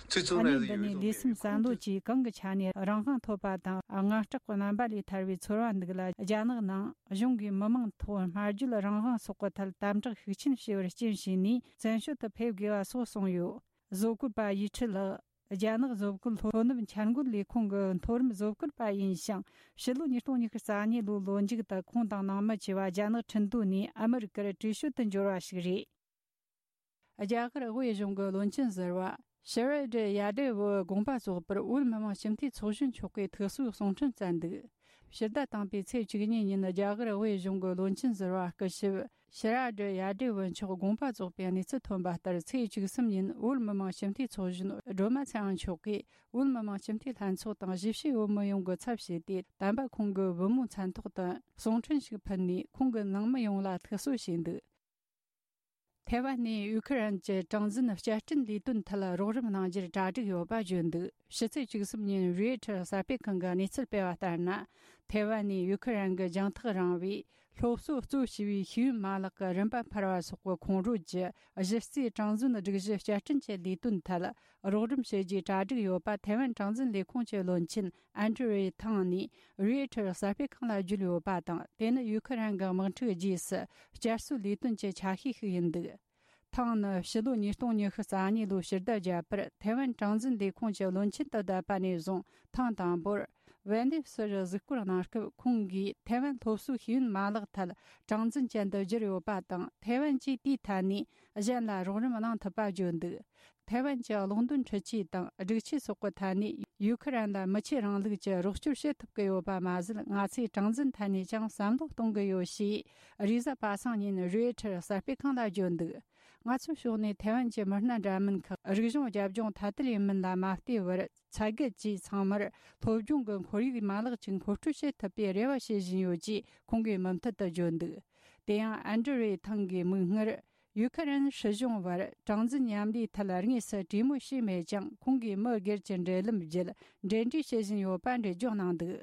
最重要的一个原因是我觉得 ཨ་ནི་འདི་ནས་ལས་སེམས་བསམ་བློ་བཅས་གང་གི་ཆ་ནས་རང་དབང་ཐོབ་པ་དང་། དངངས་སྐྲག་གི་རྣམ་པ་ལས་ཐར་བའི་ཚོར་བ་འདུག་ལ། རྒྱ་ནག་ནང་གཞུང་གིས་མི་མང་ཐོག་སྨྲ་བརྗོད་རང་དབང་སོགས་ཀྱི་ཐད་དམ་དྲག་ཤུགས་ཆེན་བྱས་པར་རྐྱེན་བྱས་ནས་བཙན་བྱོལ་དུ་ཕེབས་དགོས་པ་སོགས་གསུངས་ཡོད། བཟོ་བཀོད་པ་ཡུས་ཁྲི་ལགས་རྒྱ་ནག་བཟོ་བཀོད་སློབ་གནབ་འཆར་འགོད་ལས་ཁུངས་ཀྱི་མཐོ་རིམ་བཟོ་བཀོད་པ་ཡིན་ཞིང་། ཕྱི་ལོ་ཉིས་སྟོང་ཉི་ཤུ་རྩ་གཉིས་ལོའི་ལོ་མཇུག་ཏུ་ཁོང་དང་ནང་མི་བཅས་པ་རྒྱ་ནག་ཁྲིན་ཏུའུ་ནས་ཨ་མི་རི་ཀར་བྲོས་བྱོལ་དུ་འབྱོར་བ་ཞིག་རེད། རྒྱ་གར་དབུས་གཞུང་གི་བློན་ཆེན་ཟུར་པ་ཤི་ར་ཌི་ཡ་དེ་ཝི་དགོངས་པ་རྫོགས་པར་བོད་མི་མང་སྤྱི་འཐུས་ཚོགས་གཞོན་མཆོག་གིས་ཐུགས་གསོའི་གསུང་འཕྲིན་བསྩལ་འདུག་ཕྱི་ཟླ་དང་པོའི་ཚེས་བཅུ་གཉིས་ཉིན་རྒྱ་གར་དབུས་གཞུང་གི་བློན་ཆེན་ཟུར་པ་སྐུ་ཞབས་ཤི་ར་ཌི་ཡ་དེ་ཝི་མཆོག་དགོངས་པ་རྫོགས་པའི་གནས་ཚུལ་ཐོན་པ་ལྟར། ཚེས་བཅུ་གསུམ་ཉིན་བོད་མི་མང་སྤྱི་འཐུས་ཚོགས་གཞོན་སྒྲོལ་མ་ཚེ་དབང་མཆོག་གིས་བོད་མི་མང་སྤྱི་འཐུས་ལྷན་ཚོགས་དང་གཞིས་བྱེས་བོད་མི་ཡོངས་ཀྱི་ཚབ་བྱས་ཏེ། དམ་པ་ཁོང་གི་བུ་མོའི་མཚན་ཐོག་ཏུ་གསུང་འཕྲིན་ཞིག་ཕུལ་ནས་ཁོང་གི་ནང་མི་ཡོངས་ལ་ཐུགས་གསོ་བྱས་འདུག་ཐའེ་ཝན་ནས་ཡུ་ཁི་རན་གྱི་གྲངས་འཛིན་བསྐྱར་སྐྲུན་ལས་དོན་ཐད་རོགས་རམ་གནང་རྒྱུར་གྲ་སྒྲིག་ཡོད་པ་བརྗོད་འདུག་ཕྱི་ཚེས་བཅུ་གསུམ་ཉིན་རོའི་ཊར་གསར་སྤེལ་ཁང་གིས་གནས་ཚུལ་སྤེལ་བ་ལྟར་ན། ཐའེ་ཝན་ནས་ཡུ་ཁི་རན་གྱི་རྒྱང་ཐག་རིང་བའི་སློབ་གསོ་གཙོ་བྱས་པའི་ཤེས་ཡོན་མ་ལག་གི་རིམ་པ་འཕར་བ་སོགས་ཀྱི་ཁོངས་རོལ་གྱི་གཞི་རྩའི་གྲངས་འཛིན་སྒྲིག་གཞི་བསྐྱར་སྐྲུན་གྱི་ལས་དོན་ཐད་རོགས་རམ་བྱེད་རྒྱུའི་གྲ་སྒྲིག་ཡོད་པ་ཐའེ་ཝན་གྲངས་འཛིན་ལས་ཁུངས་ཀྱི་བློན་ཆེན་ཨན་ཀྲི་རེ་ཐང་ནས་རོའི་ཊར་གསར་སྤེལ་ཁང་ལ་བརྗོད་ཡོད་པ་དང་། དེ་ནི་ཡུ་ཁི་རན་གྱི་དམག་འཁྲུག་རྗེས་སུ་བསྐྱར་གསོའི་ལས་དོན་གྱི་ཆ་ཤས་ཤིག་ཡིན་འདུག་ཐང་ནི་ཕྱི་ལོ་ཉིས་སྟོང་ཉི་ཤུ་རྩ་གཉིས་ལོའི་ཕྱི་ཟླ་བརྒྱད་པར་ཐའེ་ཝན་གྲངས་འཛིན་ལས་ཁུངས་ཀྱི་བློན་ཆེན་དུ་བསྡད་པ་ནས་བཟུང་ཐེངས་དང་པོར་ཝན་ལེབ་སི་རུ་གཟིགས་སྐོར་གནང་སྐབས། ཁོང་གིས་ཐའེ་ཝན་སློབ་གསོའི་ཤེས་ཡོན་མ་ལག་ཐད་གྲངས་འཛིན་ཅན་དུ་བསྒྱུར་ཡོད་པ་དང་། ཐའེ་ཝན་གྱིས་དེའི་ཐད་ནས་གཞན་ལ་རོགས་རམ་གནང་ཐུབ་པ་བརྗོད་འདུག་ཐའེ་ཝན་གྱི་གློག་འདོན་འཕྲུལ་ཆས་དང་སྒྲིག་ཆས་སོགས་ཀྱི་ཐད་ནས་ཡུ་ཁི་རན་ལ་མི་ཆོས་རིང་ལུགས་ཀྱི་རོགས་སྐྱོར་བྱེད་ཐུབ་ཀྱི་ཡོད་པ་མ་ཟད། ང་ཚོས་གྲངས་འཛིན་ཐད་ནས་ཀྱང་བསམ་བློ་གཏོང་གི་ཡོད་ཞེས་རེས་གཟའ་པ་སངས་ཉིན་རོའི་ཊར་གསར་སྤེལ་ཁང་ལ་བརྗོད་འདུག་ང་ཚོའི་ཕྱོགས་ནས་ཐའེ་ཝན་གྱི་མི་སྣ་འདྲ་མིན་ཁག་རིག་གཞུང་རྒྱབ་ལྗོངས་ཐ་དད་ཡིན་མིན་ལ་མ་ལྟོས་པར། ཚད་བརྒལ་གྱིས་ཚང་མར་སློབ་སྦྱོང་གི་ཁོར་ཡུག་མ་ལག་ཅིག་མཁོ་སྤྲོད་བྱེད་ཐུབ་པའི་རེ་བ་བྱེད་བཞིན་ཡོད་ཅེས་ཁོང་གིས་མུ་མཐུད་དུ་བརྗོད་འདུག་དེ་ཡང་ཨན་ཀྲི་རེ་ཐང་གིས་མིག་སྔར་ཡུ་ཁི་རན་སྲིད་གཞུང་བར་གྲངས་འཛིན་མཉམ་ལས་ཐད་དངོས་སུ་གྲོས་མོལ་བྱས་མེད་ཀྱང་། ཁོང་གིས་མི་སྒེར་གྱི་འབྲེལ་ལམ་བརྒྱུད་འབྲེལ་འདྲིས་བྱེད་བཞིན་ཡོད་པ་འགྲེལ་བརྗོད་གནང་འདུག་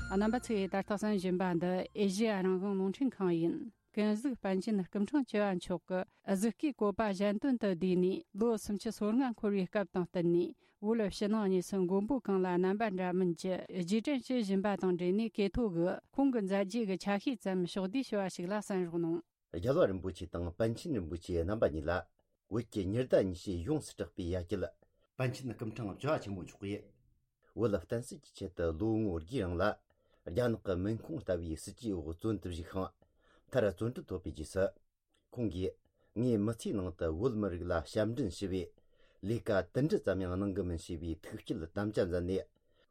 རྣམ་པ་ཚོས་ད་ལྟ་གསན་བཞིན་པ་འདི་ཨེ་ཤེ་ཡ་རང་དབང་རླུང་འཕྲིན་ཁང་ཡིན། ཀུན་གཟིགས་པཎ་ཆེན་སྐུ་ཕྲེང་བཅུ་བ་མཆོག་གི་གཟིགས་སྐུའི་བཀོད་པ་གཞན་དོན་དུ་བསྡུས་ནས་ལོ་སུམ་ཅུ་སོ་ལྔ་འཁོར་བའི་སྐབས་དང་བསྟུན་ནས། བོད་ཕྱི་ནང་གཉིས་སུ་མགོན་པོ་གང་ལ་རྣམ་པ་འདྲ་མིན་གྱི་རྗེས་དྲན་བྱེད་བཞིན་པ་དང་འབྲེལ་ནས། ཀེ་ཐོ་གིས་ཁོང་གི་མཛད་རྗེས་ཀྱི་ཆ་ཤས་ཙམ་ཕྱོགས་བསྡུས་ཞུ་བ་ཞིག་ལ་གསན་རོགས་གནང་། རྒྱལ་བ་རིན་པོ་ཆེ་དང་པཎ་ཆེན་རིན་པོ་ཆེ་རྣམ་པ་གཉིས་ལ་བོད་ཀྱི་ཉི་ཟླ་ཉི་ཤུས་ཡོངས་སུ་གྲགས་པའི་ཡ་གྱལ་པཎ་ཆེན་སྐུ་ཕྲེང་བཅུ་བ་ཆེན་མོ་མཆོག་གིས། བོད་བསྟན་སྲིད་ཀྱི་ཆེད་དུ་ལོ་ངོ་བརྒྱའི་རིང་ལ་རྒྱ་ནག་གི་མིང་ཁུངས་ལྟ་བུའི་སྲིད་ཇུས་འོག་བཙོན་དུ་བཞུགས་ཤིང་། མཐར་བཙོན་གྲོལ་ཐོབ་པའི་རྗེས་སུ། ཁོང་གིས་ངའི་མི་ཚེའི་ནང་དུ་བོད་མི་རིགས་ལ་ཞབས་འདྲེན་ཞུ་བའི་ལས་ཀ་དུམ་གྲ་ཙམ་ཡང་གནང་གི་མིན་ཞེས་པའི་ཐུགས་བསྐྱེད་དམ་བཅའ་མཛད་ནས།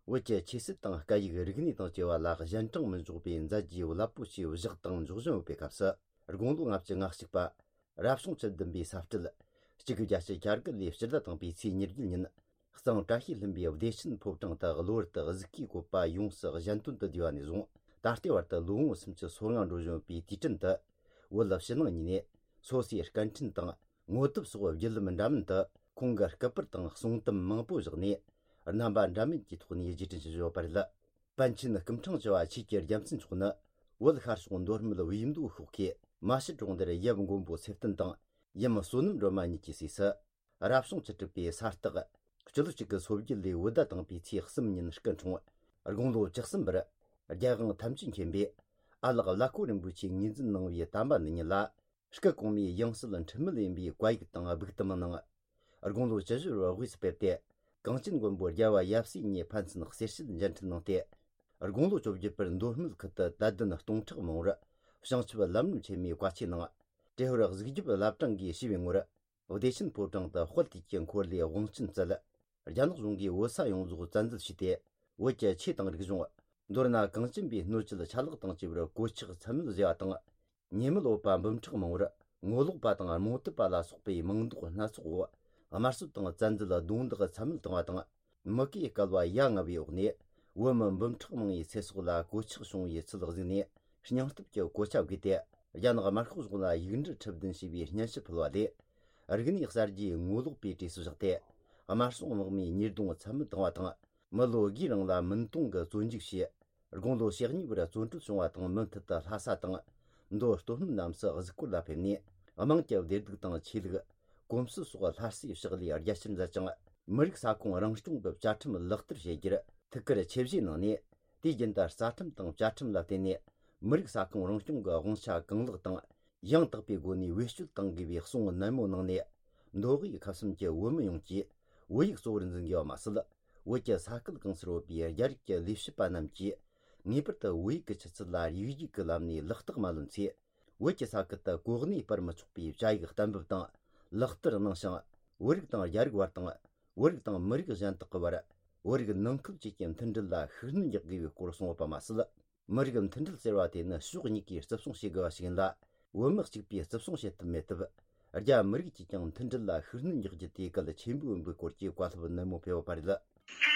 བོད་ཀྱི་ཆོས་སྲིད་དང་སྐད་ཡིག་རིག་གནས་དང་བཅས་པ་ལ་གཞན་དྲིང་མི་འཇོག་པའི་མཛད་རྗེས་རླབས་པོ་ཆེ་བཞག་དང་འཇོག་བཞིན་ཡོད་པའི་སྐབས་སུ། དགུང་ལོ་ལྔ་བཅུ་ང་གཅིག་པ། རབ་བྱུང་བཅུ་བདུན་པའི་ས་སྤྲེལ། གཅིག་དགུ་བརྒྱད་ཅུ་གྱ་དགུ་ལོའི་ཕྱི་ཟླ་དང་པོའི་ཚེས་ཉེར་བརྒྱད་ཉིན། གཙང་བཀྲ་ཤིས་ལྷུན་པོའི་བདེ་ཆེན་ཕོ་བྲང་དུ་གློ་བུར་དུ་གཟུགས་ཀྱི་བཀོད་པ་ཡོངས་སུ་གཞན་དོན་དུ་བསྡུས་པ་ནས་བཟུང་། ད་ལྟའི་བར་དུ་ལོ་ངོ་སུམ་ཅུ་སོ་ལྔ་འགྲོ་བཞིན་པའི་དུས་དྲན་དུ། བོད་ཕྱི་ནང་གཉིས་ནས་སོ་སོའི་སྐད་འཕྲིན་དང་ངོ་དེབ་སོགས་བརྒྱུད་ལམ་འདྲ་མིན་དུ་ཁོང་གི་སྐུ་པར་དང་གསུང་དེབ་མང་པོ་བཞག་ནས། རྣམ་པ་འདྲ་མིན་གྱི་ཐོག་ནས་རྗེས་དྲན་ཞུ་བཞིན་ཡོད་པ་རེད། པཎ་ཆེན་སྐུ་ཕྲེང་བཅུ་བ་ཆོས་ཀྱི་རྒྱལ་མཚན་མཆོག་ནི། བོད་ཤར་ཕྱོགས་མདོ་སྨད་བིས་མདོ་ཤོག་ཁའི་མ་ཤི་གྲོང་རྡལ་ཡབ་མགོན་པོ་ཚེ་བརྟན་དང་། ཡུམ་བསོད་ནམས་སྒྲོལ་མ་གཉིས་ཀྱི་སྲས་སུ། རབ་བྱུང་བཅུ་དྲུག་པའི་ས་སྟག། སྤྱི་ལོ་གཅིག་དགུ་སོ་བརྒྱད་ལོའི་བོད་ཟླ་དང་པོའི་ཚེས་གསུམ་ཉིན་སྐུ་འཁྲུངས། དགུང་ལོ་བཅུ་གསུམ་པར། རྒྱལ་དབང་ཐམས་ཅད་མཁྱེན་པས། ཨ་ལགས་བླ་ཁོ་རིན་པོ་ཆེས་ངོས་འཛིན་གནང་བའི་དམ་པ་འདི་ཉིད་ལ། སྐུ་གོང་མའི་ཡང་སྲིད་འཁྲུལ་མེད་ཡིན་པའི་བཀའ་ཡིག་དང་སྦུག་དུམ་གནང་། དགུང་ལོ་བཅུ་བཞི་པར་དབུས་སུ་ཕེབས་ཏེ། གངས་ཅན་མགོན་པོ་རྒྱལ་བ་ཡབ་སྲས་གཉིས་ཕན་ཚུན་གསེར་ཞལ་མཇལ་འཕྲད་གནང་སྟེ། དགུང་ལོ་བཅོ་བརྒྱད་པར་མདོ་སྨད་ཁུལ་དུ་དད་ལྡན་སྟོང་ཕྲག་མང་བོར་བྱང་ཆུབ་ལམ་རིམ་ཆེན་མོའི་བཀའ་ཆོས་གནང་། ཏྲེ་ཧོར་གཟིགས་རྒྱབ་བླ་བྲང་གིས་ཞུས་པའི་ངོར། བདེ་ཆེན་ཕོ་བྲང་དུ་དཔལ་དུས་ཀྱི་འཁོར་ལོའི་དབང་ཆེན་བསྩལ། རྒྱ་ནག་གཞུང་གིས་བོད་ས་ཡོངས་རྫོགས་བཙན་འཛུལ་བྱས་ཏེ། བོད་ཀྱི་ཆོས་དང་རིག་གཞུང་། མདོར་ན་གངས་ཅན་པའི་སྣོད་བཅུད་ཆ་ལག་དང་བཅས་པར་གོད་ཆག་ཚད་མེད་བཟོས་པ་དང་། ཉེས་མེད་འོད་པ་འབུམ་ཕྲག་མང་བོར་ངོ་ལོག་པ་དང་རྨོངས་དད་པ་ལ་སོགས་པའི་མིང་འདོགས་སྣ་ཚོགས་འོག་དམར་གསོད་དང་བཙན་འཛུལ་རྡུང་རྡེག་ཚད་མེད་བཏང་བ་དང་། མུ་གེའི་བསྐལ་བ་ཡ་ང་བའི་འོག་ནས་བོད་མི་འབུམ་ཕྲག་མང་བོའི་ཚེ་སྲོག་ལ་གོད་ཆག་བྱུང་བའི་ཚུལ་གཟིགས་ནས། སྙིང་སྟོབས་ཀྱི་གོ་ཆ་བགོས་ཏེ། རྒྱ་ནག་དམར་ཤོག་གཞུང་ལ་ཡིག་འབྲེལ་ཁྲི་བདུན་ཞེས་པའི་སྙན་ཞུ་ཕུལ་བ་ལས། རིག་གནས་གསར་བརྗེའི་ངོ་ལོག་པའི་གྲས་སུ་བཞག་སྟེ། དམར་སྲུང་དམག་མིའི་ཉེས་རྡུང་ཚད་མེད་བཏང་བ་དང་། མི་ལོ་དགུའི་རིང་ལ་མུན་དོང་གི་བཙོན་འཇུག་བྱས། དགུང་ལོ་ཞེ་གཉིས་པར་བཙོན་གྲོལ་བྱུང་བ་དང་། མུ་མཐུད་དུ་ལྷ་ས་དང་། མདོ་སྟོད་སྨད་རྣམས་སུ་གཟིགས་སྐོར་ལ་ཕེབས་ནས། དམངས་ཀྱི་བདེ་སྡུག་དང་ཆོས་ལུགས། གོམས་སྲོལ་སོགས་སླར་གསོའི་ཕྱག་ལས་རྒྱ་ཆེར་མཛད་ཅིང་། མི་རིགས་ས་ཁོངས་རང་སྐྱོང་གི་བཅའ་ཁྲིམས་ལག་བསྟར་བྱེད་རྒྱུར་ཐུགས་ཁུར་ཆེ་བཞེས་གནང་ནས། དུས་རྒྱུན་དུ་རྩ་ཁྲིམས་དང་བཅའ་ཁྲིམས་ལ་བརྟེན་ནས། མི་རིགས་ས་ཁོངས་རང་སྐྱོང་གི་དབང་ཆ་གང་ལེགས་དང་། ཡང་དག་པའི་སྒོ་ནས་བེད་སྤྱོད་གཏང་དགོས་པའི་གསུང་ནན་མོ་གནང་ནས། མདོ་དབུས་ཁམས་གསུམ་གྱི་བོད་མི་ཡོངས་ཀྱིས་བོད་ཡིག་གཙོ་བོར་འཛིན་དགོས་པ་མ་ཟད། བོད་ཀྱི་ས་ཁུལ་གང་སར་ཡོད་པའི་རྒྱ་རིགས་ཀྱི་ལས་བྱེད་པ་རྣམས་ཀྱིས། ངེས་པར་དུ་བོད་ཡིག་གི་ཆུ་ཚད་ལ་ཡིག་རྒྱུགས་ཀྱི་ལམ་ནས་ལག་རྟགས་མ་ལོན་ཚེ། བོད་ཀྱི་ས་ཁུལ་དུ་གོ་གནས་སྤར་མི་ཆོག་པའི་བཅའ་ཡིག་གཏན་འབེབས་དང་ལག་བསྟར་གནང་ཞིང་། བོད་རིགས་དང་རྒྱ་རིགས་བར་དང་། བོད་རིགས་དང་མི་རིགས་གཞན་དག་གི་བར། བོད་རིགས་ནང་ཁུལ་བཅས་ཀྱི་མཐུན་སྒྲིལ་ལ་ཤུགས་སྣོན་རྒྱག་དགོས་པའི་སྐོར་གསུངས་ཡོད་པ་མ་ཟད། མི་རིགས་མཐུན་སྒྲིལ་ཟེར་བ་དེ་ནི་ཕྱོགས་གཉིས་ཀས་བརྩི་སྲུང་བྱེད་དགོས་པ་ཞིག་ཡིན་ལ། བོད་མི་གཅིག་པས་བརྩི་སྲུང་བྱེད་ཐུབ་མེད་སྟབས། རྒྱ་མི་རིགས་ཀྱིས་ཀྱང་མཐུན་སྒྲིལ་ལ་ཤུགས་སྣོན་རྒྱག་རྒྱུ་དེ་གལ་ཆེན་པོ་ཡིན་པའི་སྐོར་གྱི་བཀའ་སློབ་ནན་མོ་ཕེབས་ཡོད་པ་རེད། ལྷ་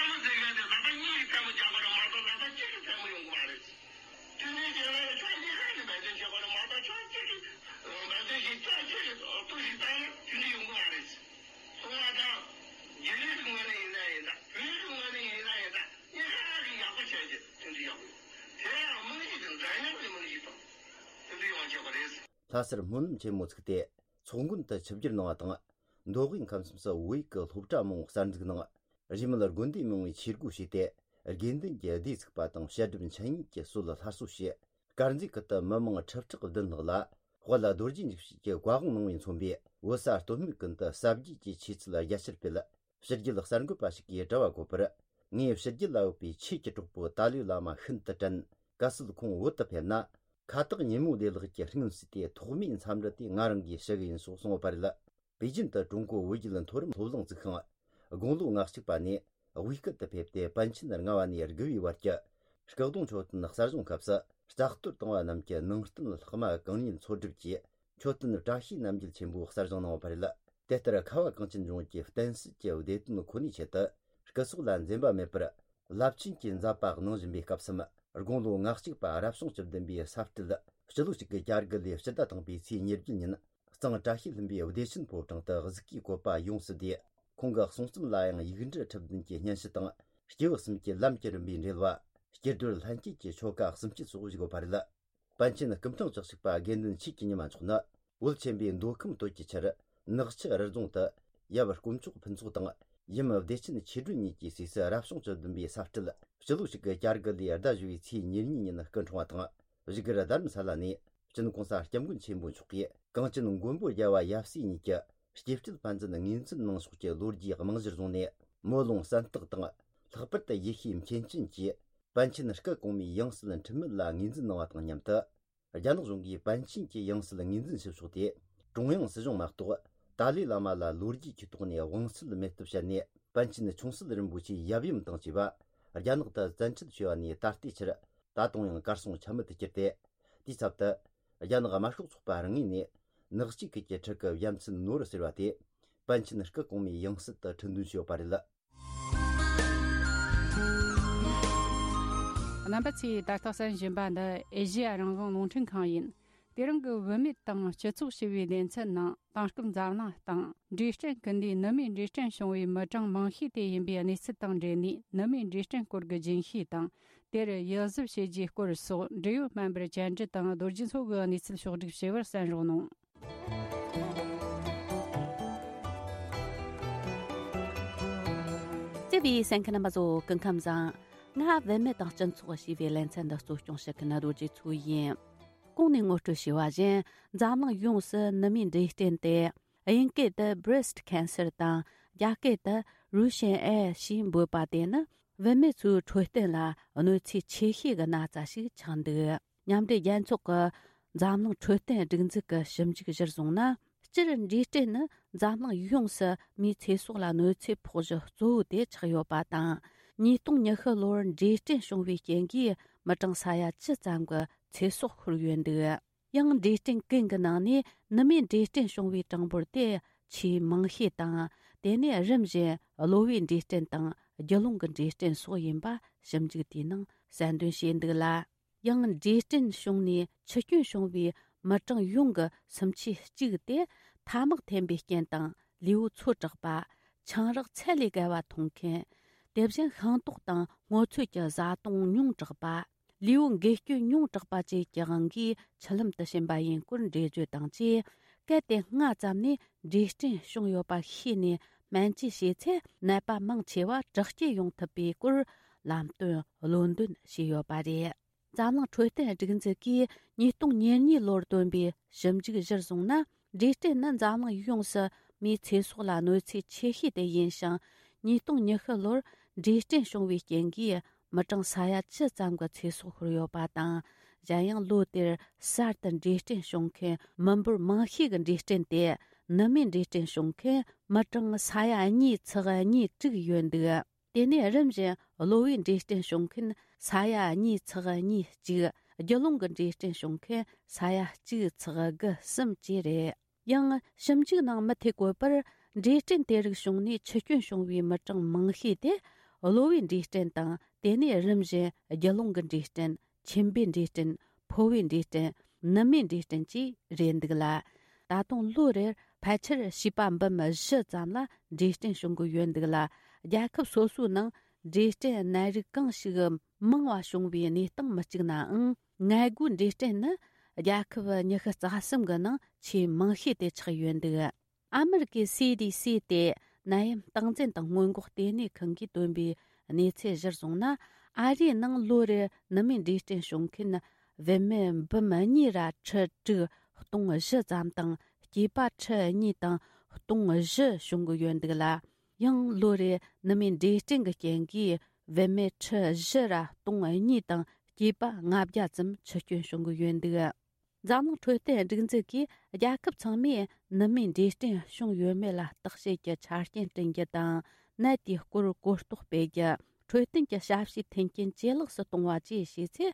མོ་ཟེར་མཁན་དེ་ལག་པ་གཉིས་ཀྱིས་ཐལ་མོ་རྒྱག་དགོས་རེད་མ་གཏོགས་ལག་པ་གཅིག་གིས་ཐལ་མོ་ཡོང་གི་མ་རེད། དེ་ནས་རྒྱལ་བའི་ཕྱག་གཉིས་ཀ་ནས་འབད་བརྩོན་བྱེད་དགོས་རེད་མ་གཏོགས་ཕྱོགས་གཅིག་གིས་འབད་བརྩོན་བྱེད་ཕྱོགས་གཅིག་གིས་ལྟོས་ཤིག་བཏང་ན་དེ་འདྲ་ཡོང་གི་མ་རེད། སོང་བ་དང་། རྒྱ་རིགས་ཀྱི་ངོས་ནས་ཡིན་ན་ཡིན་ད། བོད་ཀྱི་ངོས་ནས་ཡིན་ན་ཡིན་ད། གཉིས་ཀ་གིས་ཡག་པོ་བྱས་རྗེས་མཐུན་སྒྲིལ་ཡག་པོ་ཡོད། དེ་ཡང་རྨང་གཞི་དེ་འདྲ་མཉམ་གྱི་རྨང་གཞི་དང་མཐུན་སྒྲིལ་ཡོང་བ་བྱེད་དགོས་རེད། ལྷ་སར་སྨོན་ལམ་ཆེན་མོ་ཚུགས་ཏེ་ཚོགས་མགོན་དུ་ཆིབས་བསྒྱུར་གནང་བ་དང་། མདོ་དབུས་ཁམས་གསུམ་སུ་བོད་ཡིག་གི་སློབ་གྲྭ་མང་བོ་གསར་འཛུགས་གནང་། གཞི་མེད་དགོན་སྡེ་མང་བོའི་ཆས་སྒོ་ཕྱེས་ཏེ། དགེ་འདུན་གྱི་སྡེ་བཙུགས་པ་དང་། བཤད་སྒྲུབ་འཆད་ཉན་གྱི་སྲོལ་སླར་གསོ་བྱས། དཀར་མཛེས་ཁུལ་དུ་མི་མང་ཁྲི་ཕྲག་བདུན་ལྷག་ལ་དཔལ་རྡོ་རྗེ་འཇིགས་བྱེད་ཀྱི་བཀའ་དབང་གནང་བས་མཚོན་པའི་བོད་ས་སྟོད་སྨད་ཀུན་ཏུ་ཟབ་རྒྱས་ཀྱི་ཆོས་ཚུལ་རྒྱ་ཆེར་སྤེལ། ཕྱི་རྒྱལ་གསར་འགོད་པ་ཞིག་གིས་དྲི་བ་བཀོད་པར། ངས་ཕྱི་རྒྱལ་ལ་ཡོད་པའི་ཆོས་ཀྱི་གྲོགས་པོ་ཏཱ་ལའི་བླ་མ་ཤིན་ཏུ་དྲན། གལ་སྲིད་ཁོང་བོད་དུ་ཕེབས་ན། ཁ་བཏགས་ཉིན་མོ་བདེ་ལེགས་ཀྱི་སྙུན་གསོས་ཏེ། ཐོག་མའི་འཚམས་འདྲི་དེ་ང་རང་གིས་ཞུ་གི་ཡིན་ཞེས་གསུངས་ཡོད་པ་རེད། པེ་ཅིན་དུ་ཀྲུང་གོ་བོད་བརྒྱུད་མཐོ་རིམ་སློབ་གླིང་བཙུགས་ཤིང་། དགུང་ལོ་ང་གཅིག་པ་ནས་དབུས་སྐད་དུ་ཕེབས་ཏེ། པཎ་ཆེན་ལྔ་པ་ནས་དགུ་པའི་བར་གྱི་སྐུ་གདུང་མཆོད་རྟེན་གསར་བཞེངས་སྐབས་སུ། བཙག་གཏོར་བཏང་བ་རྣམས་ཀྱི་ནང་རྟེན་ལྷག་མ་གང་ཉིད་འཚོལ་སྒྲུབ་ཀྱིས། མཆོད་རྟེན་བཀྲ་ཤིས་རྣམ་རྒྱལ་ཆེན་པོ་གསར་བཞེངས་གནང་བ་རེད། དེ་ལྟར་ཁ་བ་གངས་ཅན་ལྗོངས་ཀྱི་བསྟན་སྲིད་ཀྱི་བདེ་དོན་ཁོ་ནའི་ཆེད་དུ། སྐུ་སྲོག་ལ་འཛེམ་པ་མེད་པར་རླབས་ཆེན་གྱི་མཛད་པ་གནང་བཞིན་པའི་སྐབས་སམ། དགུང་ལོ་ང་གཅིག་པ་རབ་བྱུང་བཅུ་བདུན་པའི་ས་སྤྲེལ། སྤྱི་ལོ་གཅིག་དགུ་གྱ་དགུ་ལོའི་ཕྱི་ཟླ་དང་པོའི་ཚེས་ཉེར་བརྒྱད་ཉིན། གཙང་བཀྲ་ཤིས་ལྷུན་པོའི་བདེ་ཆེན་ཕོ་བྲང་དུ་གཟུགས་ཀྱི་བཀོད་པ་ཡོངས་སུ་བདེ། ཁོང་གི་གསུང་རྩོམ་ལ་ཡང་ཡིག་འབྲུ་ཁྲི་བདུན་གྱི་སྙན་ཞུ་དང་། སྐྱེས་བུ་གསུམ་གྱི་ལམ་གྱི་རིམ་པའི་འགྲེལ་བ། སྐྱེ་སྒྲོལ་ལྷན་སྐྱེས་ཀྱི་ཆོ་ག་གསུམ་བཅུ་སོགས་བཞུགས་ཡོད་པ་རེད། པཎ་ཆེན་སྐུ་ཕྲེང་བཅུ་གཅིག་པ་དགེ་འདུན་ཆོས་ཀྱི་ཉི་མ་མཆོག་ནི། བོད་ཆེན་པོའི་མདོ་ཁམས་སྟོད་ཀྱི་ཆར། ནག་ཆུ་རི་རྫོང་དུ། ཡབ་དཀོན་མཆོག་ཕུན་ཚོགས་དང་། ཡུམ་བདེ་ཆེན་ཆོས་སྒྲོན་གཉིས་ཀྱི་སྲས་སུ་རབ་བྱུང་བཅུ་བདུན་པའི་ས་སྤྲེལ། སྤྱི་ལོ་གཅིག་དགུ་གྱ་དགུ་ལོའི་ཟླ་བཞི་པའི་ཚེས་ཉེར་གཉིས་ཉིན་སྐུ་འཁྲུངས་པ་དང་། བཞུགས་སྒར་རྡ་རམ་ས་ལ་ནས། ཅིན་གོང་ས་སྐྱབས་མགོན་ཆེན་པོ་མཆོག་གིས་གངས་ཅན་མགོན་པོ་རྒྱལ་བ་ཡབ་སྲས་གཉིས་ཀྱི་སྐྱེ་བཅུད་ཕན་ཚུན་ངོས་འཛིན་གནང་ཕྱོགས་ཀྱི་ལོ་རྒྱུས་རྨང་གཞིར་བཟུང་ནས། སྨོན་ལུང་གསན་སྟེགས་དང་། ལྷག་པར་དུ་ཡེ་ཤུའི་མཁན་ཆེན་གྱིས་པཎ་ཆེན་སྐུ་གོང་མའི་ཡང་སྲིད་འཁྲིད་མུས་ལ་ངོས་འཛིན་གནང་བ་དང་མཉམ་དུ། རྒྱ་ནག་གཞུང་གིས་པཎ་ཆེན་གྱི་ཡང་སྲིད་ངོས་འཛིན་བྱེད་ཕྱོགས་དེ་ཀྲུང་དབྱང་སྲིད་གཞུང་མ་གཏོགས་ཏཱ་ལའི་བླ་མ་ལ་ལོ་རྒྱུས་ཀྱི་ཐོག་ནས་དབང་ཚད་མེད་སྟབས་བཤད་ནས། པཎ་ཆེན་ཆུང་སྲིད་རིན་པོ་ཆེའི་ཡབ་ཡུམ་དང་བཅས་པ་རྒྱ་ནག་ཏུ་བཙན་ཁྲིད་བྱས་པ་ནས་ད་ལྟའི་ཆར་ད་དུང་ཡང་གར་སོང་ཆ་མེད་དུ་གྱུར་ཏེ། དེའི་ཚབ་ཏུ་རྒྱ་ནག་དམར་ཤོག་ཚོགས་པ་རང་ངོས་ནས་ནག་གཅིག་ཁུལ་གྱི་ཁྲི་གི་ཡ་མཚན་ནོར་ཟེར་བ་དེ་པཎ་ཆེན་སྐུ་གོང་མའི་ཡང་སྲིད་དུ་ཁྲི་འདོན་བྱས་ཡོད་པ་རེད། རྣམ་པ་ཚོས་ད་ལྟ་གསན་བཞིན་པ་འདི་ཨེ་ཤེ་ཡ་རང་དབང་རླུང་འཕྲིན་ཁང་ཡིན། དེ་རིང་གི་བུད་མེད་དང་སྤྱི་ཚོགས་ཞེས་པའི་སྡེ་ཚན་ནང་དེང་སྐབས་འཛམ་གླིང་སྟེང་འབྲས་སྐྲན་སྐུལ་འདེད་ནུ་མའི་འབྲས་སྐྲན་བྱུང་བའི་མི་གྲངས་མང་ཤོས་དེ་ཡིན་པའི་གནས་ཚུལ་དང་འབྲེལ་ནས། ནུ་མའི་འབྲས་སྐྲན་སྐོར་གྱི་རྒྱུན་ཤེས་དང་། དེར་ཡིད་གཟབ་བྱེད་རྒྱུའི་སྐོར་སོགས་འབྲེལ་ཡོད་སྨན་པར་བཅར་འདྲི་དང་རྡོ་རྗེ་མཚོ་གིས་གནས་ཚུལ་ཕྱོགས་བསྒྲིགས་བྱས་པར་གསན་རོགས་གནང་། བརྩེ་བའི་གསན་མཁན་རྣམ་པ་ཚོ་སྐུ་ཁམས་བཟང་། ང་བུད་མེད་དང་སྤྱི་ཚོགས་ཞེས་པའི་ལེ་ཚན་འདི་གཙོ་སྐྱོང་བྱེད་མཁན་རྡོ་རྗེ་མཚོ་ཡིན། གོང་ནས་ངོ་སྤྲོད་བྱས་པ་བཞིན། འཛམ་གླིང་ཡོངས་སུ་ནུ་མའི་འབྲས་སྐྲན་དེ་དབྱིན་སྐད་དུ་breast cancer དང་། རྒྱ་སྐད་དུ་Russian eye ཞེས་འབོད་པ་དེ་ནི། བུད་མེད་ཚོའི་འཕྲོད་བསྟེན་ལ་གནོད་འཚེ་ཆེ་ཤོས་ཀྱི་ན་ཚ་ཞིག་ཆགས་འདུག་མཉམ་འབྲེལ་རྒྱལ་ཚོགས་ཀྱི་འཛམ་གླིང་འཕྲོད་བསྟེན་སྒྲིག་འཛུགས་ཀྱི་ཞིབ་འཇུག་གཞིར་བཟུང་ན། སྤྱིར་འབྲས་སྐྲན་ནི་འཛམ་གླིང་ཡོངས་སུ་མིའི་ཚེ་སྲོག་ལ་གནོད་འཚེ་ཕོག་གཞི་གཙོ་བོ་དེ་ཆགས་ཡོད་པ་དང་། ཉིས་སྟོང་ཉི་ཤུ་ལོར་འབྲས་སྐྲན་བྱུང་བའི་རྐྱེན་གྱིས་མི་གྲངས་ས་ཡ་བཅུ་ཙམ་གྱི་ཚེ་སྲོག་ཤོར་ཡོད་འདུག་ཡང་འབྲས་སྐྲན་ཀུན་གྱི་ནང་ནས་ནུ་མའི་འབྲས་སྐྲན་བྱུང་བའི་གྲངས་འབོར་དེ་ཆེས་མང་ཤོས་དང་། དེ་ནས་རིམ་བཞིན་གློ་བའི་འབྲས་སྐྲན་དང་རྒྱུ་ཀླུང་གི་འབྲས་སྐྲན་སོགས་ཡིན་པ་ཞིབ་འཇུག་དེའི་ནང་གསལ་འདོན་བྱས་འདུག་ལ། ཡང་འབྲས་སྐྲན་བྱུང་ནས་འཆི་སྐྱོན་བྱུང་བའི་མི་གྲངས་ཡོངས་ཀྱི་སུམ་ཆའི་གཅིག་དེ་ཐ་མག་འཐེན་པའི་རྐྱེན་དང་། ལུས་པོ་ཚོ་དྲགས་པ། ཆང་རག་ཚད་ལས་བརྒལ་བ་འཐུང་མཁན། དེ་བཞིན་ཤིང་ཏོག་དང་སྔོ་ཚོད་ཀྱི་བཟའ་བཏུང་ཉུང་དྲགས་པ། ལུས་པོ་འགུལ་སྐྱོད་ཉུང་དྲགས་པ་བཅས་ཀྱི་དབང་གིས་མཆུ་ལམ་དུ་ཕྱིན་པ་ཡིན་སྐོར་འགྲེལ་བརྗོད་དང་བཅས། གལ་ཏེ་སྔ་ཙམ་ནས་འབྲས་སྐྲན་བྱུང་ཡོད་པ་ཤེས་ནས་སྨན་བཅོས་བྱས་ཚེ། ནད་པ་མང་ཆེ་བ་དྲག་སྐྱེད་ཡོང་ཐུབ་པའི་སྐོར་ལམ་སྟོན་བློ་འདོན་བྱས་ཡོད་པ་རེད། འཛམ་གླིང་འཕྲོད་བསྟེན་སྒྲིག་འཛུགས་ཀྱིས་ཉིས་སྟོང་ཉེར་གཉིས་ལོར་བཏོན་པའི་ཞིབ་འཇུག་གཞིར་བཟུང་ན། འབྲས་སྐྲན་ནི་འཛམ་གླིང་ཡོངས་སུ་མིའི་ཚེ་སྲོག་ལ་གནོད་འཚེ་ཆེ་ཤོས་དེ་ཡིན་ཞིང་། ཉིས་སྟོང་ཉི་ཤུ་ལོར་འབྲས་སྐྲན་བྱུང་བའི་རྐྱེན་གྱིས་མི་གྲངས་ས་ཡ་བཅུ་ཙམ་གྱི་ཚེ་སྲོག་ཤོར་ཡོད་པ་དང་། གཞན་ཡང་ལོ་དེར་གསར་དུ་འབྲས་སྐྲན་བྱུང་མཁན་མི་འབོར་མང་ཤོས་ཀྱི་འབྲས་སྐྲན་དེ་ནུ་མའི་འབྲས་སྐྲན་བྱུང་མཁན་མི་གྲངས་ས་ཡ་གཉིས་ཚེག་གཉིས་དྲུག་ཡོད་འདུག་དེ་ནས་རིམ་བཞིན་གློ་བའི་འབྲས་སྐྲན་བྱུང་མཁན་ས་ཡ་གཉིས་ཚེག་གཉིས་གཅིག་རྒྱུ་ཀླུང་གི་འབྲས་སྐྲན་བྱུང་མཁན་ས་ཡ་གཅིག་ཚེག་དགུ་གསུམ་བཅས་རེད། ཡང་ཞིབ་འཇུག་ནང་མུ་མཐུད་བཀོད་པར། འབྲས་སྐྲན་དེ་རིགས་བྱུང་ནས་འཆི་སྐྱོན་བྱུང་བའི་མི་གྲངས་མང་ཤོས་དེ་གློ་བའི་འབྲས་སྐྲན་དང་། དེ་ནས་རིམ་བཞིན་རྒྱུ་ཀླུང་གི་འབྲས་སྐྲན། མཆིན་པའི་འབྲས་སྐྲན། ཕོ་བའི་འབྲས་སྐྲན། ནུ་མའི་འབྲས་སྐྲན་བཅས་རེད་འདུག་ལ། ད་དུང་ལོ་རེར་ཕལ་ཆེར་བྱིས་པ་འབུམ་བཞི་ཙམ་ལ་འབྲས་སྐྲན་བྱུང་གི་ཡོད་འདུག་ལ། རྒྱལ་ཁབ་སོ་སོའི་ནང་འབྲས་སྐྲན་ནད་རིགས་གང་ཞིག་མང་བ་བྱུང་བའི་གནས་སྟངས་མི་གཅིག་ནའང་། མངལ་སྒོའི་འབྲས་སྐྲན་ནི་རྒྱལ་ཁབ་ཉི་ཤུ་རྩ་གསུམ་གི་ནང་ཆེས་མང་ཤོས་དེ་ཆགས་ཡོད་འདུག་ཨ་མི་རི་ཀའི་སི་ཌི་སི་སྟེ་ནད་ཡམས་སྟངས་འཛིན་དང་སྔོན་འགོག་ལྟེ་གནས་ཁང་གིས་བཏོན་པའི་གནས་ཚུལ་གཞིར་བཟུང་ན། ཨ་རིའི་ནང་ལོ་རེར་ནུ་མའི་འབྲས་སྐྲན་བྱུང་མཁན་བུད་མེད་འབུམ་གཉིས་ར་ཁྲི་དྲུག་སྟོང་བཞི་ཙམ་དང་། སྐྱེས་པ་ཁྲི་གཉིས་དང་སྟོང་བཞི་བྱུང་གི་ཡོད་འདུག་ལ། ཡང་ལོ་རེར་ནུ་མའི་འབྲས་སྐྲན་གྱི་རྐྱེན་གྱིས་བུད་མེད་ཁྲི་བཞི་ར་སྟོང་གཉིས་དང་སྐྱེས་པ་ལྔ་བརྒྱ་ཙམ་འཆི་སྐྱོན་བྱུང་གི་ཡོད་འདུག་འཛམ་གླིང་འཕྲོད་བསྟེན་སྒྲིག་འཛུགས་ཀྱིས་རྒྱལ་ཁབ་ཚང་མས་ནུ་མའི་འབྲས་སྐྲན་བྱུང་ཡོད་མེད་ལ་བརྟག་དཔྱད་ཀྱི་ཆ་རྐྱེན་བསྐྲུན་རྒྱུ་དང་། ནད་དེའི་སྐོར་གོ་རྟོགས་སྤེལ་རྒྱུ། འཕྲོད་བསྟེན་གྱི་ཞབས་ཞུའི་མཐུན་རྐྱེན་ཇེ་ལེགས་སུ་གཏོང་བ་བཅས་བྱས་ཚེ།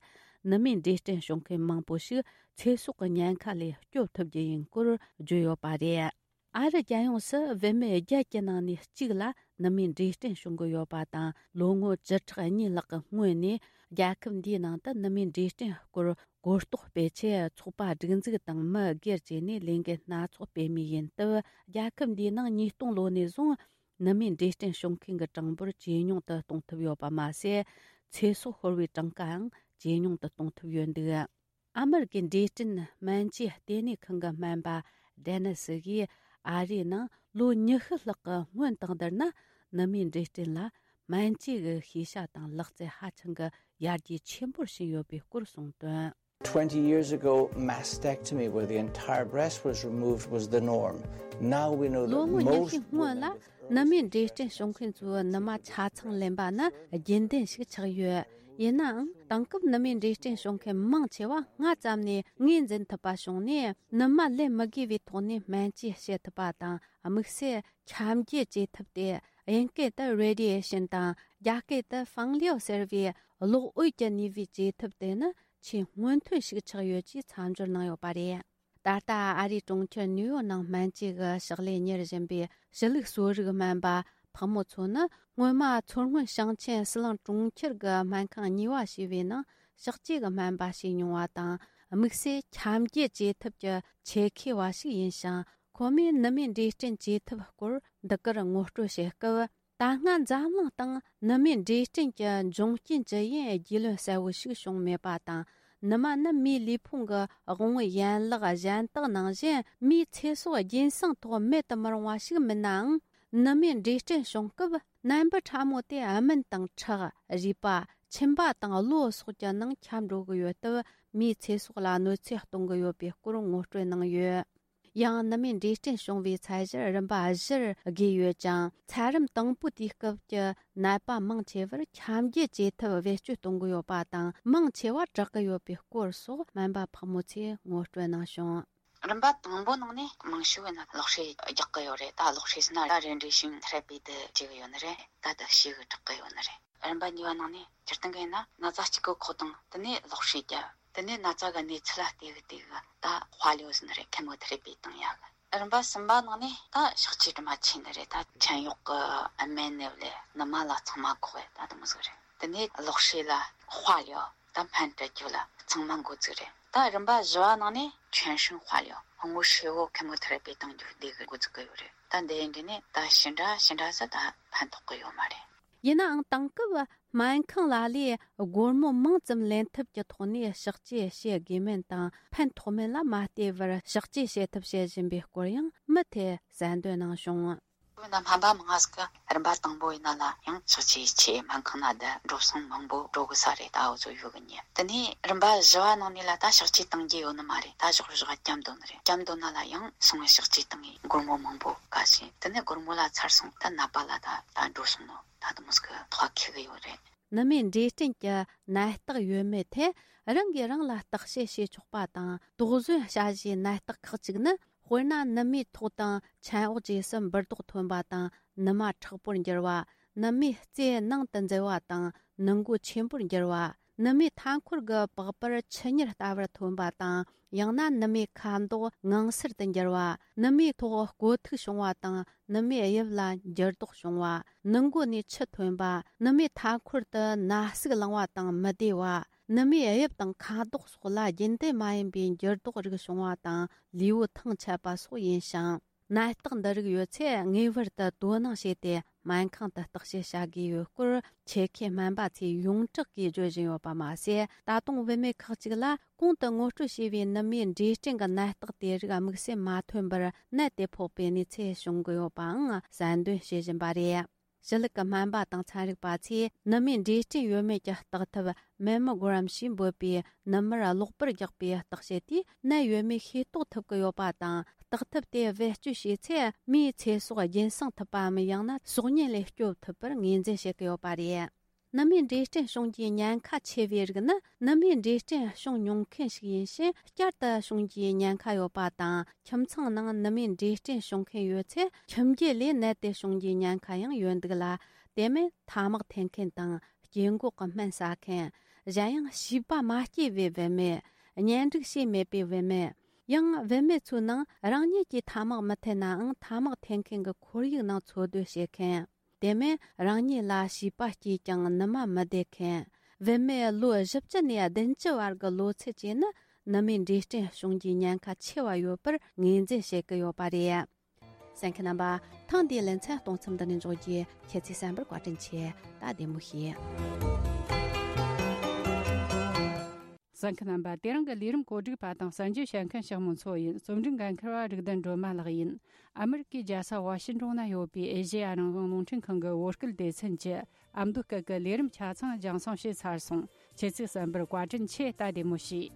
ནུ་མའི་འབྲས་སྐྲན་བྱུང་མཁན་མང་པོ་ཞིག་ཚེ་སྲོག་གི་ཉེན་ཁ་ལས་སྐྱོབ་ཐུབ་རྒྱུ་ཡིན་སྐོར་བརྗོད་ཡོད་པ་རེད། ཨ་རི་རྒྱལ་ཡོངས་སུ་བུད་མེད་བརྒྱད་ཀྱི་ནང་ནས་གཅིག་ལ་ནུ་མའི་འབྲས་སྐྲན་བྱུང་གི་ཡོད་པ་དང་། ལོ་ངོ་བཅུ་ཕྲག་གཉིས་ལྷག་གི་སྔོན་ནས་རྒྱལ་ཁབ་འདིའི་ནང་དུ་ནུ་མའི་འབྲས་སྐྲན་སྐོར་གོ་རྟོགས་སྤེལ་ཆེད། ཚོགས་པ་སྒྲིག་འཛུགས་དང་མི་སྒེར་བཅས་ནས་ལས་འགུལ་སྣ་ཚོགས་སྤེལ་མུས་ཡིན་སྟབས། རྒྱལ་ཁབ་འདིའི་ནང་ཉིས་སྟོང་ལོ་ནས་བཟུང་ནུ་མའི་འབྲས་སྐྲན་བྱུང་མཁན་གྱི་གྲངས་འབོར་ཇེ་ཉུང་དུ་གཏོང་ཐུབ་ཡོད་པ་མ་ཟད། ཚེ་སྲོག་ཤོར་བའི་གྲངས་ཀའང་ཇེ་ཉུང་དུ་གཏོང་ཐུབ་ཡོད་འདུག་ཨ་མི་རི་ཀའི་འབྲས་སྐྲན་སྨན་བཅོས་ལྟེ་གནས་ཁང་གི་སྨན་པ་ཌེ་ནི་སི་གིས། ཨ་རིའི་ནང་ལོ་ཉི་ཤུ་ལྷག་གི་སྔོན་དང་བསྡུར་ན། ནུ་མའི་འབྲས་སྐྲན་ལ་སྨན་བཅོས་ཀྱི་ཤེས་བྱ་དང་ལག་རྩལ་ཧ་ཅང་གི་ཡར་རྒྱས་ཆེན་པོར་ཕྱིན་ཡོད་པའི་སྐོར་གསུངས་དོན། Twenty years ago, mastectomy, where the entire breast was removed, was the norm. Now we know that ལོ་ངོ་ཉི་ཤུ་most སྔོན་women ལ་with early ནུ་མའི་འབྲས་སྐྲན་བྱུང་མཁན་ཚོའི་ནུ་མ་ཆ་ཚང་ལེན་པ་ནི་རྒྱུན་ལྡན་ཞིག་ཆགས་ཡོད། ཡིན་ནའང་དེང་སྐབས་ནུ་མའི་འབྲས་སྐྲན་བྱུང་མཁན་མང་ཆེ་བ་སྔ་ཙམ་ནས་ངོས་འཛིན་ཐུབ་པ་བྱུང་ནས། ནུ་མ་ལེན་མི་དགོས་པའི་ཐོག་ནས་སྨན་བཅོས་བྱེད་ཐུབ་པ་དང་། དམིགས་བསལ་ཁྱབ་འགྱེད་བྱེད་ཐབས་ཏེ། དབྱིན་སྐད་དུ་radiation དང་། རྒྱ་སྐད་དུ་ཕང་ལིའོ་ཟེར་བའི་གློག་འོད་ཀྱི་ནུས་པའི་བཅོས་ཐབས་དེ་ནི་ཆེས་སྔོན་ཐོན་ཞིག་ཆགས་ཡོད་ཅེས་མཚམས་སྦྱོར་གནང་ཡོད་པ་རེད། ད་ལྟ་ཨ་རིའི་གྲོང་ཁྱེར་ནིའུ་ཡོག་ནང་སྨན་བཅོས་ཀྱི་ཕྱག་ལས་གཉེར་བཞིན་པའི་ཕྱི་ལུགས་གསོ་རིག་སྨན་པ་ཕག་མོ་མཚོ་ནི། སྔོན་མ་མཚོ་སྔོན་ཞིང་ཆེན་ཟི་ལིང་གྲོང་ཁྱེར་གྱི་སྨན་ཁང་གཉིས་པ་ཞེས་པའི་ནང་ཕྱག་བཅོས་ཀྱི་སྨན་པ་བྱས་མྱོང་བ་དང་། དམིགས་བསལ་ཁྱབ་འགྱེད་བཅོས་ཐབས་ཀྱི་ཆེད་མཁས་པ་ཞིག་ཡིན་ཞིང་། ཁོ་མོས་ནུ་མའི་འབྲས་སྐྲན་བཅོས་ཐབས་སྐོར་འདི་གར་ངོ་སྤྲོད་བྱེད་སྐབས། ད་སྔ་འཛམ་གླིང་སྟེང་ནུ་མའི་འབྲས་སྐྲན་གྱི་འབྱུང་རྐྱེན་ཇི་ཡིན་རྒྱུས་ལོན་གསལ་བོ་ཞིག་བྱུང་མེད་པ་དང་། ནུ་མ་ནི་མིའི་ལུས་ཕུང་གི་དབང་བོའི་ཡན་ལག་གཞན་དག་ནང་བཞིན་མིའི་ཚེ་སྲོག་རྒྱུན་སྲུང་ཐོག་མེད་དུ་མི་རུང་བ་ཞིག་མིན་ནའང་། ནུ་མའི་འབྲས་སྐྲན་བྱུང་སྐབས་ནད་འབུ་ཕྲ་མོ་དེ་སྨན་དང་ཁྲག་རུས་པ། མཆིན་པ་དང་གློ་སོགས་ཀྱི་ནང་ཁྱབ་འགྲོ་གི་ཡོད་སྟབས། མིའི་ཚེ་སྲོག་ལ་གནོད་འཚེ་གཏོང་གི་ཡོད་པའི་སྐོར་ངོ་སྤྲོད་གནང་ཡོད། ཡང་ནུ་མའི་འབྲས་སྐྲན་བྱུང་བའི་ཚད་གཞིར་རིམ་པ་བཞིར་དགོས་ཡོད་ཅིང་། ཚད་རིམ་དང་པོ་དེའི་སྐབས་ཀྱི་ནད་པ་མང་ཆེ་བར་ཁྱབ་འགྱེད་བྱེད་ཐབས་བེད་སྤྱོད་གཏོང་གི་ཡོད་པ་དང་། མང་ཆེ་བ་དྲག་གི་ཡོད་པའི་སྐོར་སོགས་སྨན་པ་ཕག་མོ་མཚོས་ངོ་སྤྲོད་གནང་བྱུང་། རིམ་པ་དང་པོ་ནང་ནས་མང་ཤོས་ཡིན་ན་གློག་ཧྲལ་རྒྱག་གི་ཡོད་རེད། ད་གློག་ཧྲལ་ཟེར་ན་ར་རེན་ཌི་ཡེ་ཤིན་ཐེ་ར་པི་དེ་བྱེད་གི་ཡོད་ནི་རེད། ད་ད་ཞེ་གི་དྲག་གི་ཡོད་ནི་རེད། རིམ་པ་གཉིས་པ་ནང་ནས་སྤྱིར་བཏང་གི་ཡིན་ན་ན་ཚ་གཅིག་གི་ཁོག་དང་དེ་ནས་གློག་ཧྲལ་རྒྱག་དེ་ནས་ན་ཚ་གི་གནས་ཚུལ་ལ་བལྟས་གི་བལྟས་གི་ད་དཔལ་ཡོད་ཟིན་རེད། ཁེ་མོ་ཐེ་ར་པི་བཏང་ཡག་གི། རིམ་པ་གསུམ་པ་ནང་ནས་ད་ཕྱག་བཅོས་དྲི་མ་ཆེ་ནི་རེད། ད་མཆན་གཡོག་གི་སྨན་ནི་བླས་ནུ་མ་ལ་ཚང་མ་གོག་རེད། ད་དེ་མོ་ཟིག་རེད། དེ་ནས་གློག་ཧྲལ་ལ་དཔལ་ཡོད་ད་སྨན་སྤྲད་རྒྱུ་ལ་ཚང་མ་འགོ་བཙུགས་རེད། ད་རིམ་པ་བཞི་བ་ནང་ནས་全身化疗དངོས་ཧྲིལ་བོ་ཁེ་མོ་ཐེ་ར་པི་བཏང་རྒྱུ་འདི་གི་འགོ་བཙུགས་གི་ཡོད་རེད། ད་འདི་ཡིན་དུས་ནས་ད་ཞེ་འདྲ་ཞེ་འདྲ་ཟིག་ད་ཕན་ཐོགས་གི་ཡོད་མ་རེད། ཡིན་ནའང་དེང་སྐབས་སྨན་ཁང་ལ་ལས་སྒོར་མོ་མང་ཙམ་ལེན་ཐབས་ཀྱི་ཐོག་ནས་ཕྱག་བཅོས་བྱེད་དགོས་མིན་དང་ཕན་ཐོགས་མིན་ལ་མ་ལྟོས་པར་ཕྱག་བཅོས་བྱེད་ཐབས་བྱེད་བཞིན་པའི་སྐོར་ཡང་མུ་མཐུད་གསལ་འདོན་གནང་བྱུང་། བོད་ན་སྨན་པ་མང་ང་ཟིག་གི་རིམ་པ་དང་པོ་ཡིན་ན་ལ་ཡང་ཕྱག་བཅོས་ཆེད་སྨན་ཁང་ན་བསྡད་འགྲོ་སོང་མང་པོ་འགྲོ་གི་ས་རེད། ད་འུ་ཚོ་ཡོད་གི་ཉེ་དེ་ནས་རིམ་པ་བཞི་བ་ནང་ནས་ལ་ད་ཕྱག་བཅོས་བཏང་རྒྱུ་ཡོད་ནི་མ་རེད། ད་ཞོག་ཞོག་བསྐྱབ་འདོད་ནི་རེད། བསྐྱབ་འདོད་ན་ལ་ཡང་སོང་བའི་ཕྱག་བཅོས་བཏང་ངས་སྒོར་མོ་མང་པོ་དཀའ་ཞིང་དེ་ནས་སྒོར་མོ་ལ་ཚར་སོང་། ད་ནད་པ་ལ་ད་ད་འགྲོ་སོང་ནོ་ད་དུ་མོ་ཟིག་གི་ཐོག་ཁེ་གི་ཡོད་རེད། ནུ་མའི་འབྲས་སྐྲན་གྱི་ནད་རྟགས་ཡོད་མེད་ཐད་རང་གིས་རང་ལ་བརྟག་དཔྱད་བྱེད་ཆོག་པ་དང་། དོགས་ཟོན་བྱ་གཞིའི་ནད་རྟགས་ཁག་ཅིག་ནི། དཔེར་ན་ནུ་མའི་ཐོག་དང་མཆན་འོག་བཅས་སུ་འབུར་རྡོག་ཐོན་པ་དང་། ནུ་མ་མཁྲེགས་པོར་འགྱུར་བ། ནུ་མའི་རྩེ་ནང་དུ་འཛུལ་བ་དང་ནུ་མགོ་ཆེན་པོར་འགྱུར་བ། ནུ་མའི་མཐའ་འཁོར་གྱི་པགས་པར་ཆུ་གཉེར་ལྟ་བུར་ཐོན་པ་དང་། ཡང་ན་ནུ་མའི་ཁ་མདོག་ངང་སེར་དུ་འགྱུར་བ། ནུ་མའི་ཐོག་བསྐོ་ཐིག་བྱུང་བ་དང་། ནུ་མའི་དབྱིབས་ལ་འགྱུར་ལྡོག་བྱུང་བ། ནུ་མགོ་ནས་ཆུ་ཐོན་པ། ནུ་མའི་མཐའ་འཁོར་དུ་ན་ཟུག་ལངས་པ་དང་མི་བདེ་བ། ནུ་མའི་དབྱིབས་དང་ཁ་དོག་སོགས་ལ་རྒྱུན་ལྡན་མ་ཡིན་པའི་འགྱུར་ལྡོག་རིགས་བྱུང་བ་དང་ལུས་པོ་ཐང་ཆད་པ་སོགས་ཡིན་ཞིང་། ནད་རྟགས་འདི་རིགས་ཡོད་ཚེ་ངེས་པར་དུ་དོ་སྣང་བྱས་ཏེ་སྨན་ཁང་དུ་བརྟག་དཔྱད་བྱ་དགོས་ཡོད་སྐོར་ཆེད་མཁས་སྨན་པ་ཚོས་ཡོངས་གྲགས་ཀྱིས་བརྗོད་བཞིན་ཡོད་པ་མ་ཟད། ད་དུང་བུད་མེད་ཁག་ཅིག་ལ་གོང་དུ་ངོ་སྤྲོད་བྱས་པའི་ནུ་མའི་འབྲས་སྐྲན་གྱི་ནད་རྟགས་དེ་རིགས་དམིགས་བསལ་མ་ཐོན་པར་ནད་དེ་ཕོག་པའི་གནས་ཚུལ་བྱུང་གི་ཡོད་པའང་གསལ་འདོན་བྱེད་བཞིན་པ་རེད། ཞི་ལུགས་ཀྱི་སྨན་པ་དང་ཚན་རིག་པ་ཚོས་ནུ་མའི་འབྲས་སྐྲན་ཡོད་མེད་ཀྱི་བརྟག་ཐབས་Mammogram ཞེས་འབོད་པའི་ནུ་མར་གློག་པར་རྒྱག་པའི་བརྟག་དཔྱད་དེས་ནད་ཡོད་མེད་ཤེས་རྟོགས་ཐུབ་ཀྱི་ཡོད་པ་དང་། བརྟག་ཐབས་དེ་བེད་སྤྱོད་བྱས་ཚེ་མིའི་ཚེ་སྲོག་རྒྱུན་སྲུང་ཐུབ་པའམ། ཡང་ན་སྲོག་ཉེན་ལས་སྐྱོབ་ཐུབ་པར་ངོས་འཛིན་བྱེད་ཀྱི་ཡོད་པ་རེད། ནུ་མའི་འབྲས་སྐྲན་བྱུང་རྒྱུའི་ཉེན་ཁ་ཆེ་བའི་རིགས་ནི་ནུ་མའི་འབྲས་སྐྲན་བྱུང་མྱོང་མཁན་ཞིག་ཡིན་ཕྱིན་བསྐྱར་དུ་བྱུང་རྒྱུའི་ཉེན་ཁ་ཡོད་པ་དང་། ཁྱིམ་ཚང་ནང་ནུ་མའི་འབྲས་སྐྲན་བྱུང་མཁན་ཡོད་ཚེ་ཁྱིམ་རྒྱུད་ལས་ནད་དེ་བྱུང་རྒྱུའི་ཉེན་ཁ་ཡང་ཡོད་འདུག་ལ། དེ་མིན་ཐ་མག་འཐེན་མཁན་དང་སྐྱེ་འགོག་གི་སྨན་ཟ་མཁན། གཞན་ཡང་བྱིས་པ་མ་སྐྱེས་པའི་བུད་མེད། གཉེན་སྒྲིག་བྱས་མེད་པའི་བུད་མེད། ཡང་བུད་མེད་ཚོའི་ནང་རང་ཉིད་ཀྱིས་ཐ་མག་མི་འཐེན་ནའང་ཐ་མག་འཐེན་མཁན་གྱི་ཁོར་ཡུག་ནང་འཚོ་སྡོད་བྱེད་མཁན། དེ་མིན་རང་ཉིད་ལ་བྱིས་པ་སྐྱེས་ཀྱང་ནུ་མ་མི་བདེ་མཁན། བུད་མེད་ལོ་བཞི་བཅུ་ནས་བདུན་ཅུ་བར་གྱི་ལོ་ཚད་བཅས་ནི་ནུ་མའི་འབྲས་སྐྲན་བྱུང་རྒྱུའི་ཉེན་ཁ་ཆེ་བ་ཡོད་པར་ངོས་འཛིན་བྱེད་ཀྱི་ཡོད་པ་རེད། གསན་མཁན་རྣམ་པ། ཐེངས་འདིའི་ལེ་ཚན་གཏོང་མཚམས་འདི་ནས་འཇོག་རྒྱུ། ཁྱེད་ཚོས་གསན་པར་བཀའ་དྲིན་ཆེ། ད་བདེ་མོ་བྱོས། གསན་མཁན་རྣམ་པ། དེ་རིང་གི་ལས་རིམ་གོ་སྒྲིག་པ་དང་གསན་རྒྱུ་བྱེད་མཁན་ཞག་མོ་མཚོ་ཡིན། རྩོམ་སྒྲིག་འགན་འཁུར་བ་རིག་ལྡན་སྒྲོལ་མ་ལགས་ཡིན། ཨ་མི་རི་ཀའི་རྒྱལ་ས་ཝ་ཤིན་ཏོན་ན་ཡོད་པའི་ཨེ་ཤེ་ཡ་རང་དབང་རླུང་འཕྲིན་ཁང་གི་བོད་སྐད་སྡེ་ཚན་གྱི་ཨ་མདོ་སྐད་ཀྱི་ལས་རིམ་ཆ་ཚང་རྒྱང་སྲིང་བྱས་ཚར་སོང་། ཁྱེད་ཚོས་གསན་པར་བཀའ་དྲིན་ཆེ། ད་བདེ་མོ་བྱོས།